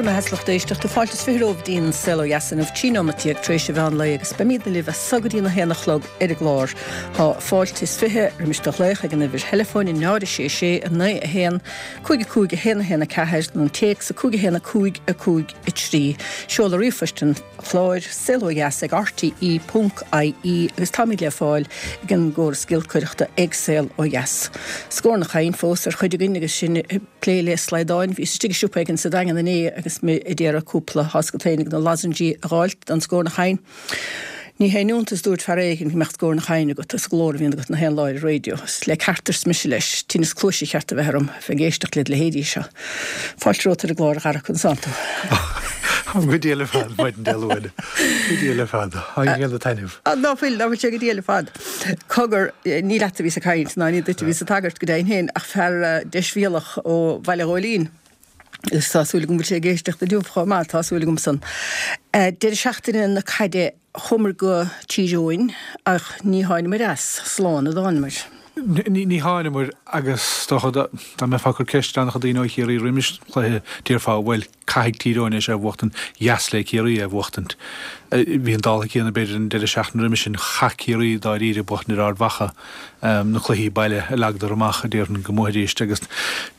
Bhur mbeatha, a lucht éisteachta, fáilte is 20 romhaibh go dtí an Saol Ó Dheas inniu, 13 nóimeat tar éis an mheán lae agus beimidne libh as so go dtí an 1 a chlog ar an gclár. Tá fáilte is 20 roimis do ghlaoch ag an uimhir theileafóin 0 6 6 9 1 5 5 1 1 4 nó an téacs 5 1 5 5 3. Seoladh ríomhphoist an chláir, saolodheas ag rte ponc ie agus táimid le fáil ag an gcóras giolcaireachta ag Saol Ó Dheas. Scornach againn fós ar chuid againn agus sinn ag plé le slaghdáin. Bhíos istigh i siopa éigin sa Daingean inné agus mé ag iarraidh cúpla tá's agat féin de na lozengí a dh'fháilt don scornach againn. Ní haon iontas dúirt fear éigin go mbeadh scornach againn agat as an nglór a bhíonn agat na haon lá ar an raidió. Is le ceart arsa mise leis, tinneas cluaise cheart a bheith orm bheith ag éisteacht led leithéidí seo. Fáilte romhat ar an gclár a Dhara conas tánn tú. Go diail ar fad, maidin Dé Luain. Go diail ar fad. Tá ag déanamh taitneamh. Ná fuil, ná fuil sé go diail ar fad. Cogar, ní leat a bhíos ag caint, ná ní duit a bhíos ag tagairt go deimhin féin, ach fear deisbhéalach ó Bhaile Ghóilín. Agus tá súil agam go bhfuil sé ag éisteacht inniu chomh maith, tá súil agam san. Deireadh seachtaine na caide chuamar go Tír Eoghain ach ní tháinamair as, slán a dtánamair. Ní tháinamair agus is dócha dá mbeifeá ag cur ceist ar an-chuid daoine ó Chiarraí roimis an chluiche déarfá bhuel caithfidh Tír Eoghain é seo a bhuachtaint, dheas le Ciarraí é a bhuachtaint. Bhí an dála céanna b'fhéidir an deireadh seachtaine roimis sin, chaith Ciarraí dáiríre buachtaint ar Ard Mhacha. na cluichí baile a leagadar amach, a déarfainn, go mbuafaidís agus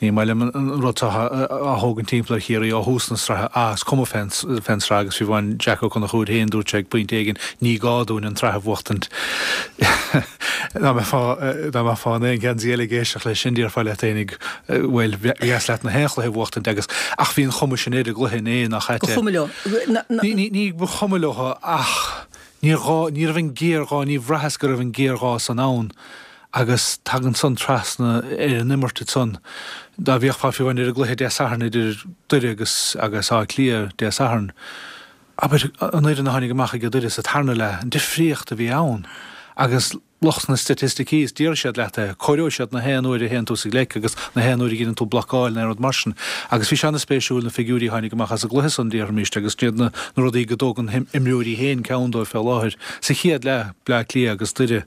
ní maith liom an rud seo á thógaint timpeall ar Chiarraí ó thús na sraithe. Ah, is cuma fén sraith agus fiú amháin Jack Ó Conchúir féin, dúirt sé ag pointe éigin, ní gá dúinn an tsraith a bhuachtaint. Dá mbeifeá, dá mbeifeá in aon gheansaí eile ag éisteacht leis sin, déarfá leat fhéinig, bhuel, ba dheas leat na haon chluiche a bhuachtaint agus, ach bhí an chuma sin ar an gcluiche inné, nach ait é? Ba chuma leo. Ní, ní ba chuma leo ach. Níor ghá, ní raibh an géarghá, ní bhraitheas go raibh an géarghá san ann agus tagann san trasna ar an imirt ansan. Dá bhféachfá fiú amháin ar an gcluiche Dé Sathairn idir Doire agus agus Áth Cliath Dé Sathairn, abair, an fhoireann a tháinig amach ag Doire sa tarna leath, an difríocht a bhí ann agus lucht na staitisticí, is déarfaidh siad leat é, comhaireoidh siad na haon uair a théann tú sa ghleic agus na haon uair a dheineann tú blocáil nó aon rud mar sin. Agus bhí sé ana-spéisiúil na figiúirí a tháinig amach as an gcluiche san, déarfaimíst, agus iad na rudaí go dtógann na himreoirí féin ceann dóibh fé láthair. Sa chéad leath, Bleá Cliath agus Doire,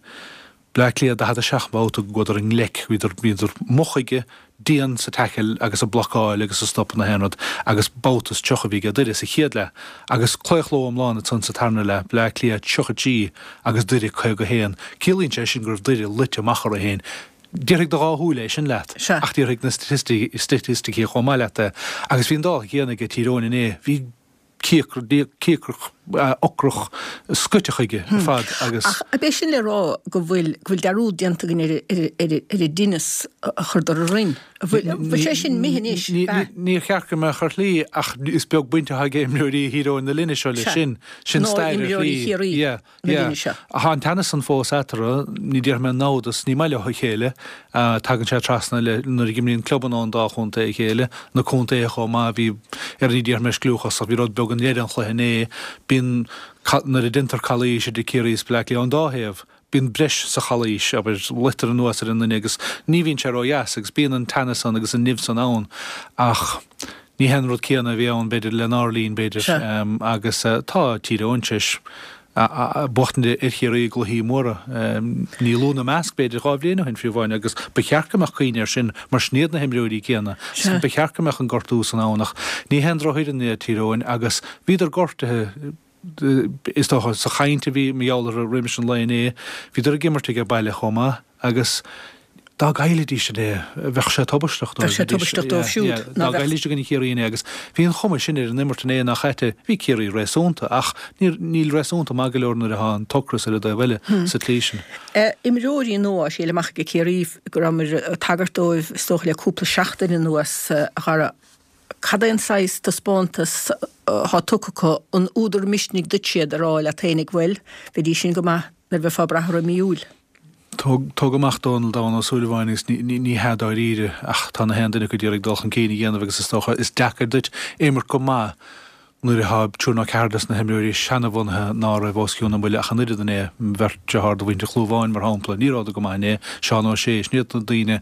Bleá Cliath 47 babhta go gcuadar i ngleic, bhíodar, bhíodar moch chuige, dian sa tackle agus ag blocáil agus ag stopadh na haon rud agus babhta is 30 a bhí ag Doire sa chéad leath agus claochló iomlán ansan sa tarna leath, Bleá Cliath 33 agus Doire 51. Ciallaíonn sé sin go raibh Doire luite amach orthu féin. Déarfaidh do dhá shúil é sin leat ach déarfaidh na staitisticí chomh maith leat é. Agus bhí an dála céanna ag Tír Eoghain inné. Bhí. cíocrach, ocrach, scoite chuige ar fad agus. Ach ab é sin le rá go bhfuil, go bhfuil dearúd déanta againn ar, ar, ar, ar an dtinneas a chuireadar orainn? An bhfuil, an bhfuil sé sin imithe anois? Níor cheart go mbeadh ar shlí ach is beag baint atá ag imreoirí Thír Eoghain na linne seo leis sin. Sin stair ar shlí. Nó imreoirí Chiarraí. na linne seo. Tá an teannas san fós eatarthu, ní déarfaidh mé namhdas, ní maith leo a chéile. Tagann sé trasna le nuair a imríonn clubanna ón dá chontae a chéile, na contaetha chomh maith, bhí, ar ní déarfaidh mé scliúchas ach bhí rud beag i ndeireadh an chluiche inné. Bíonn, nuair a deintear calaois idir Ciarraí is Bleá Cliath ón dá thaobh, bíonn breis sa chalaois, abair, luitear anuas ar an nduine agus ní bhíonn sé ródheas agus bíonn an teannas san agus an nimh san ann ach ní hé an rud céanna a bhí ann, b'fhéidir, lenár linn, b'fhéidir, agus tá Tír Eoghain tar éis buachtaint ar Chiarraí i gcluichí móra, ní lú ina measc, b'fhéidir, 2 bhliain ó shin fiú amháin, agus ba cheart go mbeadh cuimhne air sin mar sin iad na himreoirí céanna. Ba cheart go mbeadh an gortú san ann ach ní haon drochfhoireann iad Tír Eoghain agus bhíodar gortaithe, is dócha, sa chaint a bhí mar gheall orthu roimis an lae inné, bhíodar ag imirt aige baile chomh maith agus dá gcaillfidís inné, bheadh sé tubaisteach dóibh. Bheadh sé tubaisteach dóibh siúd. Dá gcaillfidís i gcoinne Chiarraí inné agus bhí an chuma sin ar an imirt inné nach ait é, bhí Ciarraí réasúnta ach níl réasúnta maith go leor nuair atá an t-ocras ar an dtaobh eile sa tslí sin. Imreoirí nua á thriail amach ag Ciarraí go rabhamar ag tagairt dóibh is dócha le cúpla seachtain anuas, a Dhara. Cad é an saghas taispeántas atá tugtha acu? An údar misnigh duit iad a rá leat fhéinig, bhuel, bheidís sin go maith nuair a bheifeá ag brath orthu i mí Iúil? Tóg amach Dónal Donn Ó Súilleabháin agus ní hea dáiríre ach tá na haon duine acu ag iarraidh dul chun cinn a dhéanamh agus is dócha is deacair duit imirt go maith nuair atá triúr nó ceathrar des na himreoirí seanabhunaithe ná raibh os cionn a mbuille ach an oiread inné, beirt dearthár de mhuintir Chlúmháin mar shampla, ní rabhadar go maith inné, Seán Ó Sé, sin iad na daoine.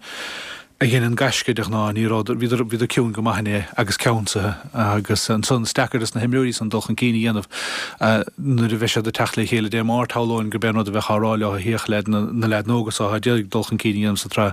A dheineann gaisce de ghnáth, ní raibh, bhíodar, bhíodar ciúin go maith inné agus ceansaithe agus ansan is deacair dos na himreoirí san dul chun cinn a dhéanamh nuair a bheidh siad ag teacht le chéile Dé Máirt, shamhlóinn gurb é an rud a bheadh á rá leo, féach leaid, na leaideanna óga so atá ag iarraidh dul chun cinn a dhéanamh sa tsraith,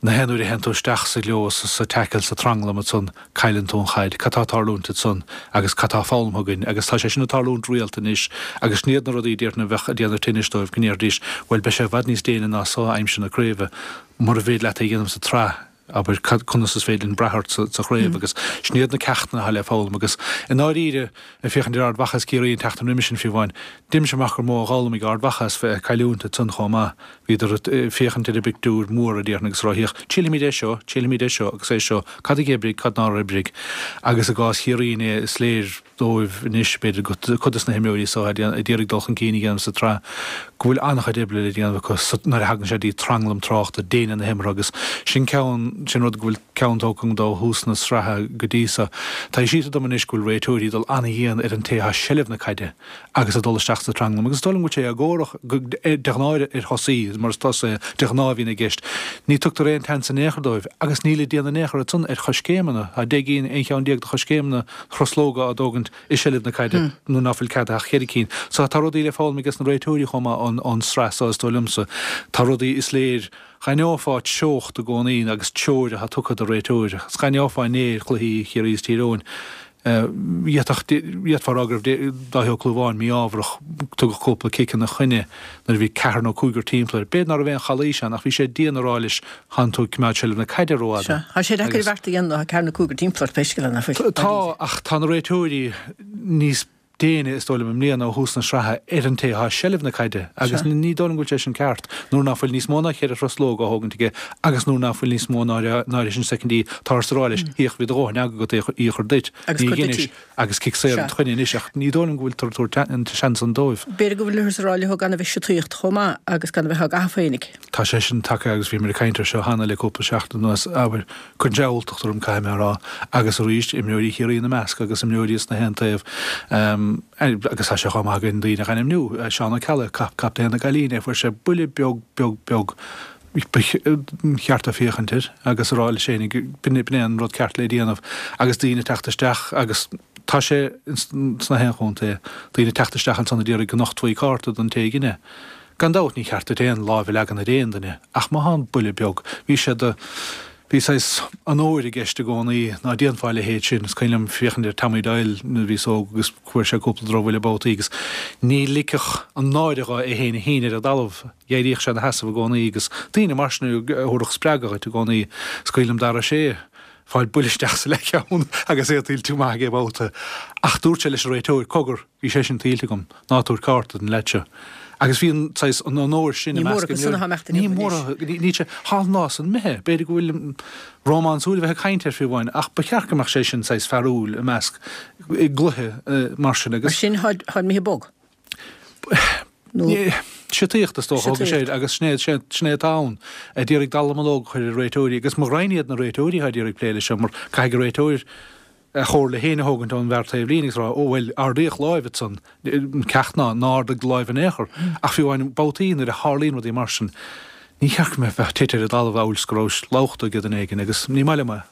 na haon uair a théann tú isteach sa ghlios, sa tackle, sa tranglam ansan, cailleann tú an chaid, cad tá ag tarlúint ansan agus cad tá foghlamtha againn agus tá sé sin ag tarlúint rialta anois agus sin iad na rudaí déarfainn a bheadh ag déanamh tinnis dóibh go ndéarfaidís bhuel beidh sé i bhfad níos déine ná so aimsir na craoibhe mura bhféidir leat é a dhéanamh sa tsraith abair cad conas is féidir linn brath ort sa sa chraobh agus sin iad na ceachtanna atá le foghlaim agus i ndáiríre ag féachaint ar Ard Mhacha is Ciarraí an tseachtain roimis sin fiú amháin deinimse amach gur mó a d'fhoghlaim ag Ard Mhacha as bheith ag cailliúint ansan chomh maith. Bhíodar ag féachaint ar an bpictiúr mór, a déarfainn, agus ag rá, Féach, triailfimid é seo, triailfimid é seo agus é seo, cad a d'oibrigh, cad nár oibrigh. Agus i gcás Chiarraí inné, is léir dóibh anois, b'fhéidir, cuid de na himreoirí so atá ag iarraidh dul chun cinn a dhéanamh sa tsraith, go bhfuil an-chuid oibre le déanamh acu nuair a thagann sé dtí tranglam tráchta, déine na himeartha agus sin ceann, sin rud go bhfuil ceann tógtha agam dó ó thús na sraithe go dtí so. Tá sé sílte dom anois go bhfuil réiteoirí ag dul an-dhian ar an té atá i seilbh na caide. agus ag dul isteach sa tranglam. Agus is dóigh liom go bhfuil sé éagórach de ghnáth ar thosaí, mar is tosaithe de ghnáth a bhíonn i gceist. Ní tugtar aon tseans in aon chor dóibh, agus níl ag déanamh in aon chor ansan ar choiscéimeanna. Tá 10 gcinn, 11 cheann de choiscéimeanna truslóga á dtógaint i seilbh na caide nuair ná fuil ceadaithe ach cheithre cinn. So tá rudaí le foghlaim ages na réiteoirí chomh maith ón sraith so is dóigh liomsa. Tá rudaí is léir Dh'aithneofá treocht i gcónaí agus treoir atá tugtha do réiteoir. Agus dh'aithneofá inné ar chluichí Chiarraí is Tír Eoghain. D'fhéadfá a rá go raibh Dáithí Ó Clúmháin mí-ámharach, tugadh cúpla cic ina choinne nuair a bhí ceathrar nó cúigear timpeall air. B'fhéidir ná raibh aon chalaois ann ach bhí sé dian a rá leis thánn tú ag coimeád seilbh na caide rófhada. Sea, tá sé deacair beart a dhéanamh, tá ceathrar nó cúigear timpeall ort pé scéal é, nach bhfuil? Tá, ach tá na réiteoirí níos déine, is dóigh liom, i mbliana ó thús na sraithe ar an té atá i seilbh na caide agus ní dóigh liom go bhfuil sé sin ceart nuair ná fuil níos mó ná cheithre thruslóg á thógaint aige agus nuair ná fuil níos mó ná ná sin soicindí táthar ag rá leis féach bhí do dhóthain eaga agat í a chur duit Agus ní cur duit dheinis í. agus cic saor Sea. id choinne anois ach ní dóigh liom go bhfuiltear ag tabhairt an seans san dóibh. B'fhéidir go bhfuilthear ag rá leo gan a bheith siotaíocht chomh maith agus gan a bheith á gcaitheamh féinig. Tá sé sin tagtha agus bhíomar ag caint air seo cheana le cúpla seachtain anuas, abair, cuireann sé alltacht orm, caithfidh mé a rá, agus arís, imreoirí Chiarraí ina measc agus imreoirí as na haon taobh, agus tá sé chomh maith againn daoine a ainmniú, Seán Ó Ceallaigh, captaen na gcailíní, fuair sé buille beag, beag, beag, ba cheart dó féachaint air agus a rá leis féinig, b'in é an rud ceart le déanamh agus daoine ag teacht isteach agus tá sé sna haon chontae, daoine ag teacht isteach ansan a d'iarraidh go nochtfaí cárta don té a dhein é. Gan dabht, ní cheart duit aon láimh a leagan ar aon duine, ach má thá an buille beag, bhí sé do, bhí saghas onóir i gceist i gcónaí, ná déanfá a leithéid sin. Is cuimhin liom féachaint ar Tommy Doyle nuair a bhíos óg agus fuair sé cúpla drochbhuille babhtaí agus ní ligfeadh an náire dho é féin a shíneadh ar an dtalamh, d'éiríodh sé ina sheasamh i gcónaí agus daoine mar sin a thabharfadh spreagadh dhuit i gcónaí. Is cuimhin liom Dara Ó Sé ag fáil buille isteach sa leathcheann agus é tuillte go maith aige babhta ach dúirt sé leis an réiteoir, cogar, Bhí sé sin tuillte agam, ná tabhair cárta don leaid seo. Agus bhí an saghas, an onóir sin i Ní mór measc acu san imreoirí. atá imeacht Ní inniu mór, anois. níl sé, thá an lá san imithe. B'fhéidir go bhfuil rómánsúil a bheith ag caint air fiú amháin, ach ba cheart go mbeadh sé sin saghas fearúil i measc, i gcluiche mar sin Mar agus. sin, tháid imithe bog. Nó. Siotaíocht is dócha, thóg sé Siotaíocht. agus sin é, sin é atá ann. A d'iarraidh dallamullóg a chur ar réiteoirí agus mo ghraidhin iad na réiteoirí atá d'iarraidh plé leis seo mar caithfidh an réiteoir, a chomhairle féin a thógaint ón bhfear taobh líne agus rá, ó bhuel, ardaíodh láimh ansan, an ceacht ná, ná ardaigh do láimh in aon chor. Ach fiú amháin babhtaí nuair a tharlaíonn rudaí mar sin, ní cheart go mbeifeá ag titim ar an dtalamh amhail is go rabhais lobhta ag duine éigin agus ní maith liom é.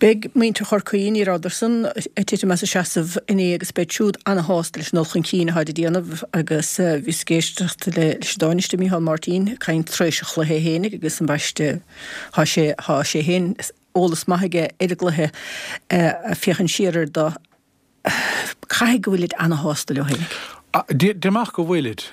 Beidh muintir Chorcaí, ní rabhadar-san ag titim as a seasamh inné agus beid siúd ana-shásta leis an dul chun cinn atáid ag déanamh agus bhíos ag éisteacht leis an Tánaiste Micheál Martin ag caint tar éis an chluiche fhéinig agus ambaiste thá sé, thá sé féin eolas maith aige ar an gcluiche, féachaint siar air do. Caithfidh go bhfuilid ana-shásta leo fhéinig. Déarfainn amach go bhfuilid.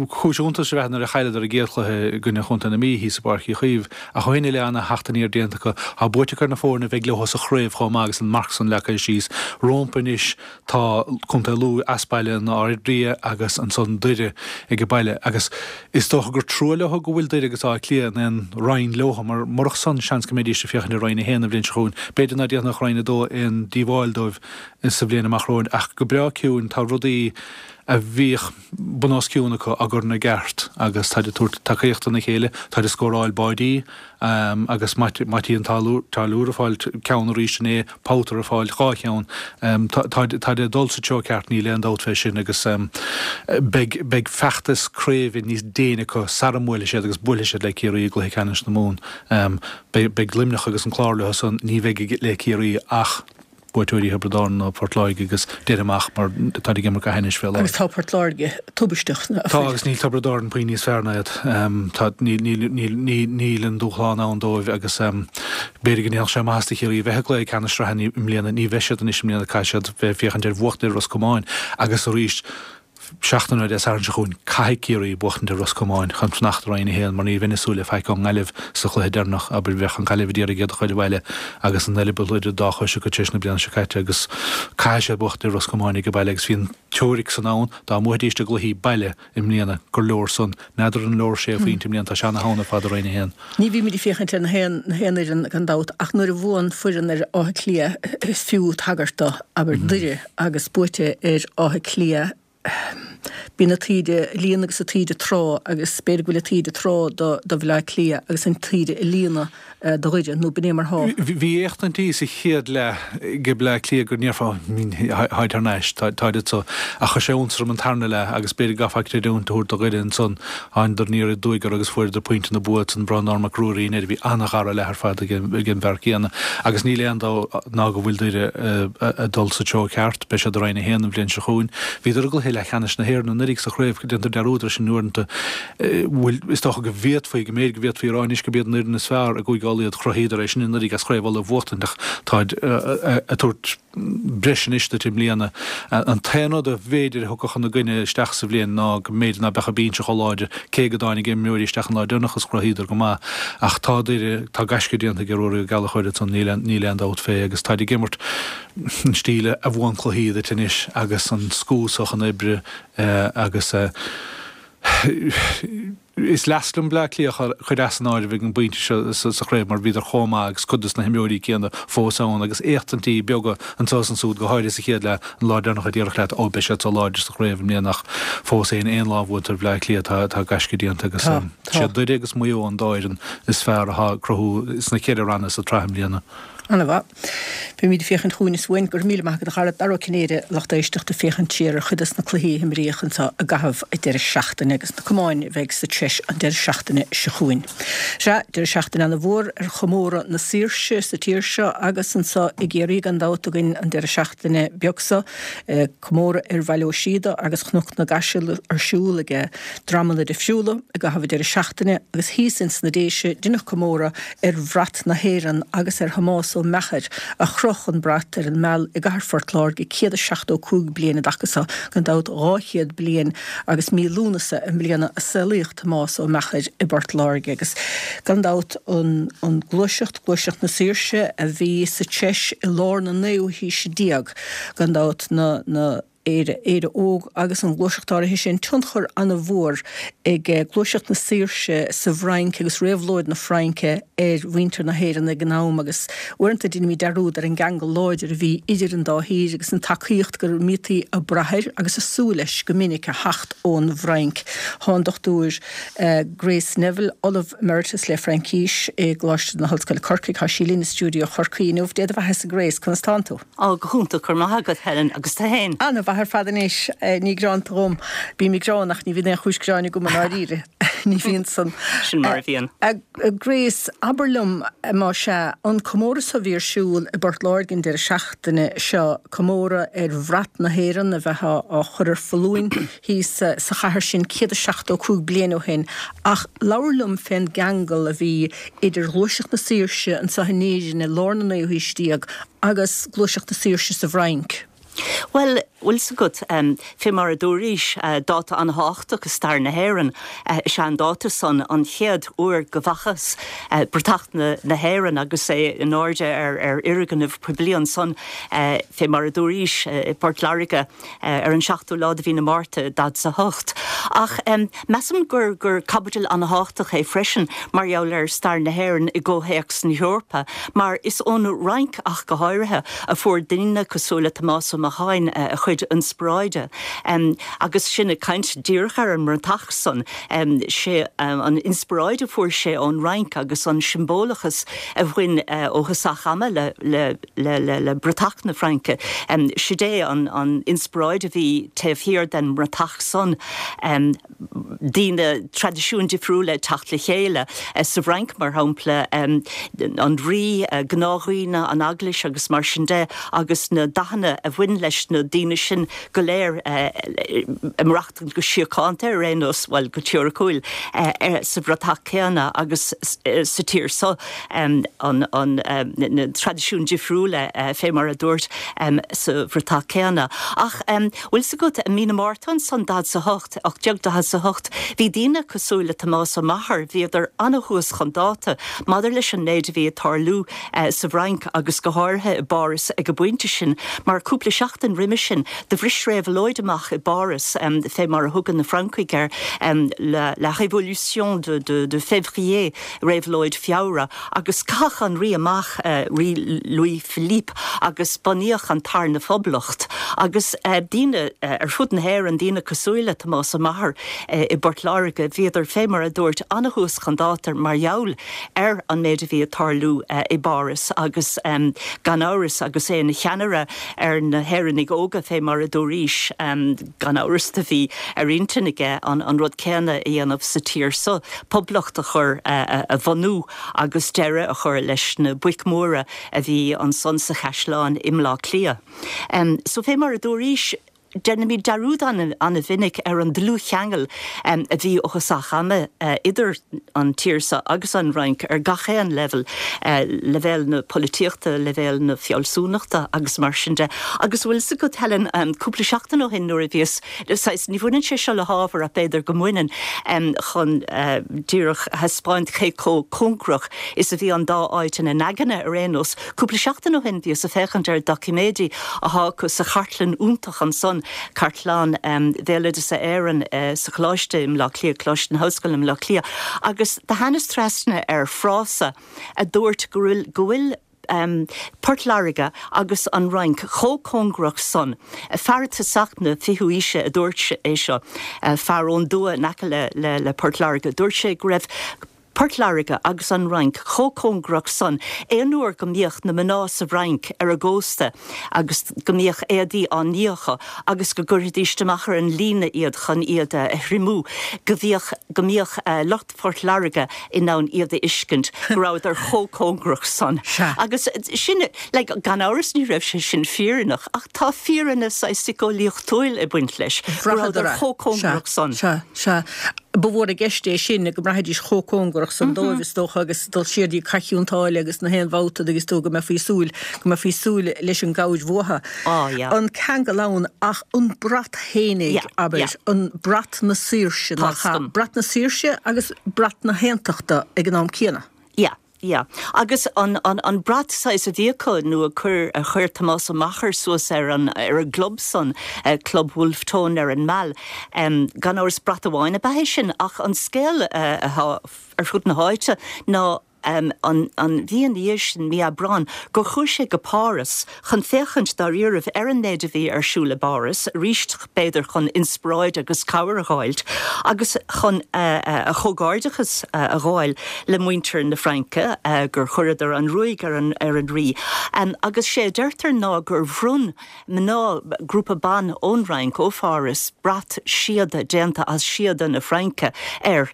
Cúis iontais ab ea nuair a chailleadar a gcéad chluiche i gcoinne Chontae na Mí thíos i bPáirc Uí Chaoimh, ach ó shin i leith ana-theacht aniar déanta acu. Tá buaite acu ar na foirne a bheidh leo sa chraobh chomh maith agus an marc san leagtha síos rómpa anois. Tá Contae Lú as baile in Ard Ria agus ansan Doire age baile agus is dócha gur trua leo go bhfuil Doire agus Áth Cliath in aon roinn leo mar murach san seans go mbeidís ag féachaint ar Roinn 1 an bhliain seo chugainn. B'fhéidir ná déanfadh Roinn 2 aon díobháil dóibh sa bhliain amach romhainn ach go breá ciúin tá rudaí. rudaí a bhíodh bun os cionn acu á gcur ina gceart agus táid ag tabhairt tacaíocht dona chéile, táid ag scóráil báidí agus Mattie an Táilliúir ag fáil ceann arís inné, Powter ag fáil 2 cheann. Táid ag dul sa treo ceart, níl aon dabht fé sin agus beidh beidh feachtas craoibhe níos déine acu sara mbuailfidh siad agus buailfidh siad le Ciarraí i gcluiche ceannais na Mumhan. Beidh beidh Luimneach agus an Clár leo san, ní bheidh le Ciarraí ach buaiteoirí Thiobraid Árann nó Port Láirge agus déarfainn amach mar táid ag imirt go hainnis fé láthair. Agus tá Port Láirge tubaisteach. Tá agus níl Tiobraid Árann puinn níos fearr ná iad. Tá, níl, níl, níl, níl, níl an dúshlán ann dóibh agus b'fhéidir go ndéanfadh sé maitheas do Chiarraí a bheith i gcluiche ceannais sraithe i mbliana. Ní bheidh siad anois i mbliana, caithfidh siad bheith ag féachaint ar bhuachtaint ar Ros Comáin agus arís seachtain ó Dé Sathairn seo chugainn, caithfidh Ciarraí buachtaint ar Ros Comáin chun fanacht i Roinn 1 mar ní bheinn ag súil le faic ón nGaillimh sa chluiche deireanach. Abair, bheadh an Ghaillimh ag iarraidh iad a chur abhaile agus an eireaball idir an dá chois acu tar éis na bliana seo caite agus caithfidh siad buachtaint ar Ros Comáin ag baile agus bhí an teoiric san ann dá mbuafaidís a gcluichí baile i mbliana gur leor san. N'fheadar an leor sé phointe i mbliana, tá sé ana-theann ar fad i Roinn 1. Ní bhímid ag féachaint ar na haon na haon fhoireann gan dabht ach nuair a bhuann foireann ar Áth Cliath is fiú tagairt do, abair, Doire agus buaite ar Áth Cliath bíonn an taoide ag líonadh agus an taoide ag trá agus b'fhéidir go bhfuil an taoide ag trá do do Bhaile Átha Cliath agus an taoide ag líonadh do Dhoire nó b'in é mar thá. Bhí éachtaintí sa chéad leath ag Bleá Cliath go ndéarfá táid thar n-ais, táid anso. Ach chuir sé iontas orm an tarna leath agus b'fhéidir go gcaithfeá creidiúint a thabhairt do Dhoire ansan. Thánadar aniar aduaidh orthu agus fuaireadar pointe na bua ansan. Breandán Mac Ruairí in air. Bhí an-dhara leath ar fad ag an bhfear céanna. Agus níl aon dabht ná go bhfuil Doire ag dul sa treo ceart. Beidh siad i Roinn 1 an bhliain seo chugainn. Bhíodar i gcluiche leathcheannais na hÉireann anuraidh sa chraobh. Déantar dearúd air sin uaireanta. Bhuel, is dócha go bhféadfaí, go mb'fhéidir go bhféadfaí a rá anois gurb iad an fhoireann is fearr i gCúige Uladh iad. Chruthaíodar é sin anuraidh as Craobh Uladh a bhuachtaint ach táid ag tabhairt breis anois duit i mbliana. An t-aon rud a bh'fhéidir a thiocfadh ina gcoinne isteach sa bhliain ná go mb'fhéidir ná beadh an binse chomh láidir, cé go dtáinig imreoirí isteach an lá deireanach is chruthaíodar go maith. Ach tá Doire, tá gaisce déanta ag Ruairí Ó Gallchóir ansan, níl aon dabht fé agus táid ag imirt an stíl a bhuann cluichí duit anois agus an scuab chun oibre agus. Is leasc liom Bleá Cliath a chur as an áireamh ag an bpointe seo sa chraobh mar bhíodar chomh maith agus cuid dos na himreoirí céanna fós ann agus éachtaintí beaga anseo is ansúd, go háirithe sa chéad leath, an lá deireanach a déarfadh leat 'Ó, beidh siad so láidir sa chraobh i mbliana' ach fós féin aon lá a bhuaitear Bleá Cliath tá tá gaisce déanta agus siad Doire agus Maigh Eo an dá fhoireann is fearr atá ag cruthú sna ceithre ranna sa tsraith i mbliana. Ana-mhaith. Beimid ag féachaint chugainn is uainn. Go raibh míle maith agat a chara. Dara Ó Cinnéide, lucht éisteachta, ag féachaint siar ar chuid des na cluichí a himríodh anseo i gcaitheamh an deireadh seachtaine agus na camáin a bheidh sa treis an deireadh seachtaine seo chugainn. Sea, deireadh seachtaine ana-mhór ar chomóradh na saoirse sa tír seo agus anseo i gCiarraí gan dabht againn an deireadh seachtaine beag seo. Comóradh ar Bhaile Ó Síoda agus Chnoc na gCaiseal ar siúl ag dreamanna difriúla i gcaitheamh an deireadh seachtaine agus thíos ins na Déise deineadh comóradh ar bhrat na hÉireann agus ar Thomás Ó Meachair a chroch an brat ar an Meal i gcathair Phort Láirge 175 bliain i dtaca so, gan dabht 200 bliain agus mí Lúnasa i mbliana a saolaíodh Tomás Ó Meachair i bPort Láirge agus gan dabht an an gluaiseacht, gluaiseacht na saoirse a bhí sa treis i lár na naoú haoise déag, gan dabht na na. Éire, Éire Óg agus an ghluaiseacht áirithe sin, tionchar an-mhór ag gluaiseacht na saoirse sa bhFrainc agus réabhlóid na Fraince ar mhuintir na hÉireann ag an am agus uaireanta deinimid dearúd ar an gceangal láidir a bhí idir an dá thír agus an tacaíocht go mbítí ag brath air agus ag súil leis go minic a theacht ón bhFrainc. Tá an Dr Grace Neville, Ollamh Emeritus le Fraincís i gColáiste na hOllscoile Corcaigh, tá sí linn i stiúideo Chorcaí inniu. Dé do bheathasa Grace, conas tánn tú? Á, go hiontach, go raibh maith agat, Helen, agus tú fhéin? Ana-mhaith ar fad anois, ní greanta dhom. Bím ag gearán ach ní bhíonn aon chúis gearáin agam i ndáiríre. Ní bhíonn san. Sin mar a bhíonn. A Grace, abair liom, más ea, an comóradh so a bhí ar siúl i bPort Láirge an deireadh seachtaine seo, comóradh ar bhrat na hÉireann a bheith á chur ar foluain thíos sa chathair sin 175 bliain ó shin, ach labhair liom fén gceangal a bhí idir Ghluaiseacht na Saoirse anseo in Éirinn i lár na naoú haois déag agus Gluaiseacht na Saoirse sa bhFrainc. Bhuel, bhfuil 's agat, fé mar a dúraís, dáta an-thábhachtach i stair na hÉireann is ea an dáta san, an chéad uair go bhfacthas bratach na hÉireann agus é in airde ar fhoirgneamh poiblí ansan, fé mar a dúraís, i bPort Láirge. ar an seachtú lá de mhí na Márta, 48. Ach measaim gur gur caibidil an-thábhachtach é freisin mar gheall ar stair na hÉireann i gcomhthéacs na hEorpa, mar is ón Fhrainc ach go háirithe a fuair daoine cosúil le Tomás Ó Meacháin a chuid. chuid inspioráide. Agus sinn ag caint díreach ar an mbratach san, sé an inspioráid a fuair sé ón Fhrainc agus an siombalachas a bhain ó thosach ama le le bratach na Fraince, sid é an inspioráid a bhí taobh thiar den mbratach san. daoine, traidisiúin difriúla ag teacht le chéile. Sa bhFrainc, mar shampla, an rí, gnáthdhaoine, an eaglais agus mar sin de, agus na dathanna a bhain leis na daoine sin go léir ag maireachtaint go síochánta ar aon nós, bhuel, go teoiriciúil, sa bhratach céanna agus sa tír seo, na traidisiúin difriúla, fé mar a dúirt, sa bhratach céanna. Ach bhfuil 's agat, i mí na Márta ansan, 48, 1848, bhí daoine cosúil le Tomás Ó Meachair, bhíodar ana-thuas chun dáta maidir leis an méid a bhí ag tarlú sa bhFrainc agus go háirithe i bPáras ag an bpointe sin, mar cúpla seachtain roimhe sin do bhris réabhlóid amach i bPáras, fé mar a thugann na Francaigh air, la révolution de février, réabhlóid Feabhra, agus caitheadh an rí amach, Rí Louis Philippe, agus bunaíodh an Tarna Phoblacht. Agus daoine ar fud na hÉireann, daoine cosúil le Tomás Ó Meachair i bPort Láirge, bhíodar, fé mar a dúirt, ana-thuas chun dáta mar gheall ar an méid a bhí ag tarlú i bPáras agus gan amhras agus é ina cheannaire ar na hÉireannaigh Óga, fé mar a dúraís, gan amhras do bhí ar intinn aige an rud céanna a dhéanamh sa tír so. poblacht a chur, a bhunú agus deireadh a chur leis na boic mhóra a bhí ansan sa chaisleán i mBleá Cliath. So fé mar a dúraís, déanaimid dearúd ana-mhinic ar an dlúthcheangal a bhí ó thosach ama idir an tír so agus an Fhrainc ar gach aon leibhéal, leibhéal na polaitíochta, leibhéal na fealsúnachta agus mar sin de. Agus bhfuil 's agat, Helen, cúpla seachtain ó shin nuair a bhíos Saghas, ní bhaineann sé seo le hábhar ach b'fhéidir go mbaineann, chun díreach a thaispeáint cé chomh cóngarach is a bhí an dá áit ina n-aigne ar aon nós. Cúpla seachtain ó shin bhíos ag féachaint ar doiciméidí athá acu sa chartlann iontach ansan, Cartlann Bhéaloideasa Éireann sa Choláiste i mBleá Cliath, Coláiste na hOllscoile i mBleá Cliath, agus do thánas trasna ar frása a dúirt go bhfuil, go bhfuil, Port Láirge agus an Fhrainc chomh cóngarach san. Fear i dtosach na fichiú aoise a dúirt é seo, fear ón dtuath in aice le Port Láirge. Dúirt sé go raibh Port Láirge agus an Fhrainc chomh cóngarach san aon uair go mbíodh na mná sa bhFrainc ar an gcósta agus go mbíodh éadaí á ní acu agus go gcuirfidís amach ar an líne iad chun iad a thriomú, go bhíodh, go mbíodh lucht Phort Láirge in ann iad a fheiscint, go rabhadar chomh cóngarach san. Sea. Agus sin, like, gan amhras ní raibh sé sin fírinneach, ach tá fírinne saghas síceolaíochtúil ag baint leis, go rabhadar Bhraitheadar é. chomh cóngarach Sea, san. sea, sea. Ba mhór i gceist é sin, go mbraithfidís chomh cóngarach san dóibh, is dócha, agus dul siar dtí Cath Chionn tSáile agus na haon bhabhta agus tú go mbeifí ag súil, go mbeifí ag súil leis an gcabhair uathu. Á, yeah. An ceangal ann ach an brat fhéinig, Yeah, abair, yeah. an brat na saoirse, Tá nach ea? 'fhios agam. Brat na saoirse agus brat na haontachta ag an am céanna. Yeah, yeah. Agus an, an, an brat saghas a bhí acu nó a chuir, a chuir Tomás Ó Meachair suas ar an, ar an gclub san, Club Wolfe Tone ar an Meal, gan amhras brat amháin ab ea é sin ach an scéal atá ar fud na háite ná, an mhí ina dhiaidh sin, mí Aibreáin, gur chuaigh sé go Páras chun féachaint dáiríribh ar an méid a bhí ar siúl i bPáras, arís b'fhéidir chun inspioráid agus cabhair a dh'fháilt, agus chun a chomhghairdeachas a ghabháil le muintir na Fraince gur chuireadar an ruaig ar an ar an rí. Agus sé a deirtear ná gur bhronn mná, grúpa ban ón Fhrainc, ó Pháras, brat síoda déanta as síoda na Fraince air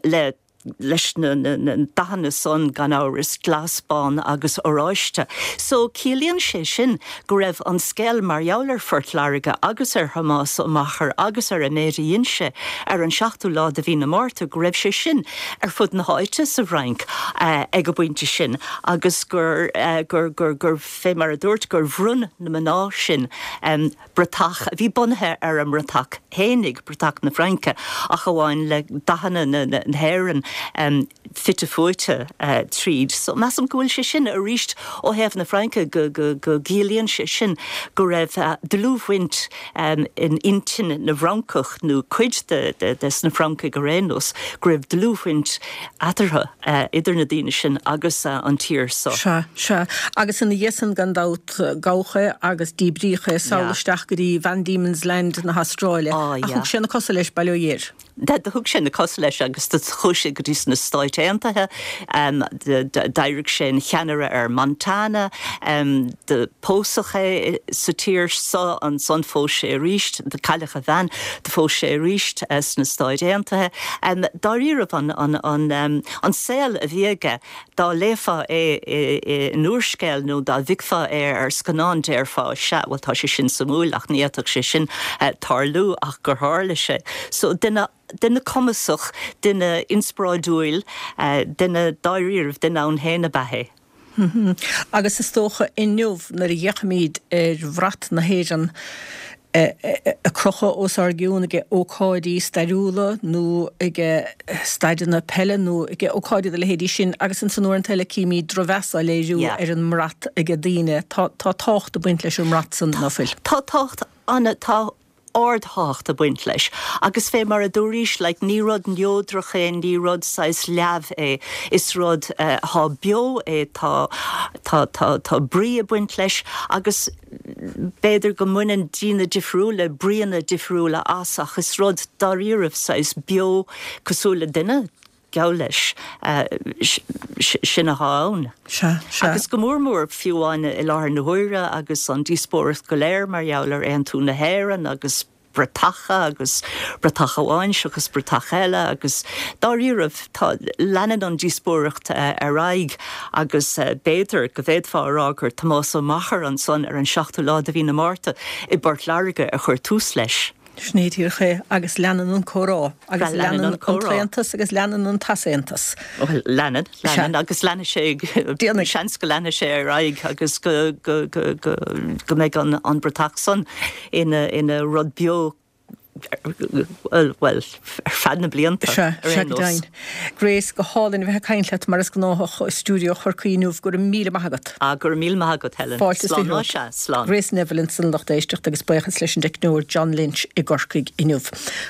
le leis na dathanna san, gan amhras, glas, bán agus oráiste. So, ciallaíonn sé sin go raibh an scéal mar gheall ar Phort Láirge agus ar Thomás Ó Meachair agus ar an méid a dhein sé ar an seachtú lá de mhí na Márta, go raibh sé sin ar fud na háite sa bhFrainc ag an bpointe sin agus gur, gur, gur, gur, fé mar a dúirt, gur bhronn na mná sin bratach a bhí bunaithe ar a mbratach fhéinig, bratach na Fraince, ach amháin le dathanna na hÉireann. fite fuaite tríd. So measaim go bhfuil sé sin arís ó thaobh na Fraince go gciallaíonn sé sin go raibh dlúthbhaint in intinn na bhFrancach nó cuid des na Francaigh ar aon nós, go raibh dlúthbhaint eatarthu, idir na daoine sin agus an tír so. Sea, sea. Agus ina dhiaidh san gan dabht gabhadh é agus díbríodh é sall isteach go dtí Van Diemen's Land na hAstráile. Ach thug sé na cosa leis, bail ó Dhia air. Do thug sé na cosa leis agus do chuaigh sé go dtí sna Stáit Aontaithe. D'éirigh sé ina cheannaire ar Montana. Do pósadh é sa tír so. Ansan phós sé arís. Do cailleadh a bhean. Do phós sé arís sna Stáit Aontaithe. Dáiríribh an saol a bhí aige, dá léifeá é in úrscéal nó dá bhficfeá é ar scannán déarfá, sea, bhuel tá sé sin suimiúil ach ní fhéadfadh sé sin tarlú ach gur tharla sé. So duine, duine cumasach, duine inspioráidiúil, duine dáiríribh, duine ann féin ab ea é. Agus is dócha inniu nuair a fhéachaimid ar bhrat na hÉireann ag crochadh os ár gcionn ag ócáidí stairiúla nó ag staideanna peile nó ag ócáidí dá leithéidí sin agus ansan uaireanta eile címid drochmheas á léiriú ar an mbrat ag daoine. Tá tábhacht ag baint leis an mbrat san, ná fuil? Tá tábhacht ana, tá ardthábhacht ag baint leis. Agus fé mar a dúraís, like, ní rud neodrach é, ní rud saghas leamh é, is rud athá beo é, tá, tá, tá, tá brí ag baint leis agus b'fhéidir go mbaineann daoine difriúla bríonna difriúla as ach is rud dáiríribh saghas beo cosúil le duine, geall leis, sin athá ann. Sea, sea. Agus go mór mór, fiú amháin i láthair na huaire agus an díospóireacht go léir mar gheall ar aontú na hÉireann agus bratacha agus bratach amháin seachas bratach eile agus dáiríribh tá, leanann an díospóireacht ar aghaidh agus b'fhéidir go bhféadfá a rá gur Tomás Ó Meachair ansan ar an seachtú lá de mhí na Márta i bPort Láirge a chuir tús leis. Sin é díreach é, agus leanann an comhrá, agus leanann an t-aontas agus leanann an t-easaontas. Bhuel, leanann, leanann, agus leanfaidh sé, Déanfaidh. seans go leanfaidh sé ar aghaidh agus go, go, go, go, go mbeidh an, an bratach san ina, ina rud beo, bhuel, bhuel, ar feadh na blianta, Sea, ar sea aon go nós. deimhin. Grace, go hálainn a bheith ag caint leat mar is gnáthach ó stiúideo Chorcaí inniu. Go raibh míle maith agat. Ah, go raibh míle maith agat, Helen. Fáilte is Slán, romhat. sea, slán. Grace Neville ansan a lucht éisteachta agus buíochas leis an dteicneoir John Lynch i gCorcaigh inniu.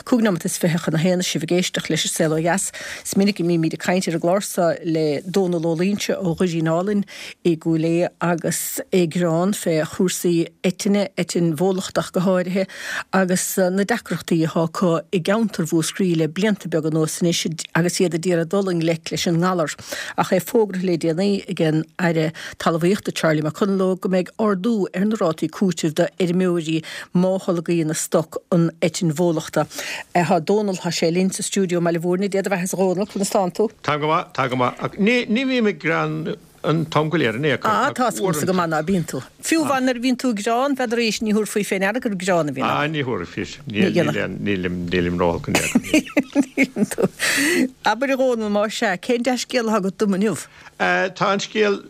25 nóimeat chun a haon is sibh ag éisteacht leis an Saol Ó Dheas. Is minic a mbímid ag caint ar an gclár seo le Dónal Ó Loingsigh ó Dhoirín Álainn i gCúil Aodha agus é ag gearán fé chúrsaí eitinne, eitinn bhólachtach go háirithe, agus na deacrachtaí atá acu i gceantar Mhúscraí le blianta beaga anuas anois agus iad a d'iarraidh dul i ngleic leis an ngalar. Ach é fógartha le déanaí ag an Aire Talmhaíochta Charlie McConalogue go mbeidh ardú ar na rátaí cúitimh do fheirmeoirí má tholgaíonn a stoc an eitinn bhólachta. Tá Dónal, tá sé linn sa stiúideo i mBaile Mhúirne. Dé do bheatha a Dhónaill, conas tánn tú? Táim go maith, tá go maith. Ach ní, ní bhím ag gearán an t-am go léir in aon chor. Ah, tá a fhios agamsa go maith ná bíonn tú. Fiú amháin nuair a bhíonn tú ag gearán, b'fhéidir arís, ní thabharfaí fé ndeara gur gearán a bhíonn ann. Ah, ní thabharfaí. Níl, níl aon, nílim, nílim róolc in aon chor. Níleann tú. Abair a Dhónaill, más ea, cén dea-scéal atá agat dom inniu? Tá an scéal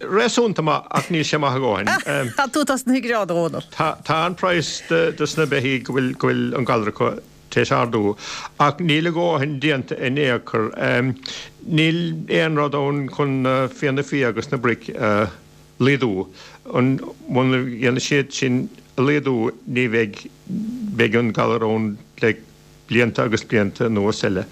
réasúnta maith ach níl sé maith a dhóthain. Tá tú tosnaithe ag gearán, a Dhónaill. Tá, tá an praghas dos na beithígh go bhfuil, go bhfuil an galar acu tar éis ardú ach níl a dhóthain déanta in aon chor. Níl aon rud ann chun na fianna fia agus na broic a laghdú. Muna dhéanfaidh siad sin a laghdú ní bheidh, beidh an galar ann le blianta agus blianta anuas eile.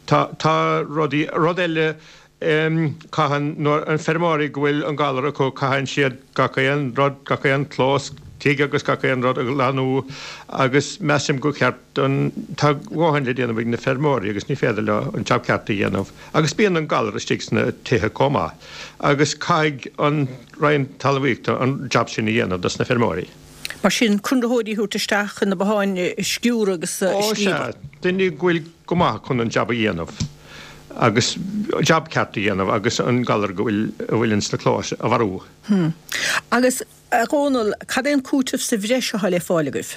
Tá, tá rudaí, rud eile, caitheann, nuair, an feirmeoirí go bhfuil an galar acu, caitheann siad gach aon rud, gach aon clós tigh agus gach aon rud a ghlanú agus measaim gur cheart don, tá a dhóthain le déanamh ag na feirmeoirí agus ní féidir leo an jab ceart a dhéanamh agus bíonn an galar istigh sna tithe chomh maith agus caithfidh an Roinn Talmhaíochta an jab sin a dhéanamh dos na feirmeoirí. Mar sin, conraitheoirí a thabhairt isteach chun na botháin a sciúradh agus a Ó sea, scríobadh. duine go bhfuil go maith chun an jab a dhéanamh agus jab ceart a dhéanamh agus an galar go bhfuil, a bhfuil ins na clóis a mharú. Hm. Agus, a Dhónaill, cad é an cúiteamh sa bhreis atá le fáil agaibh?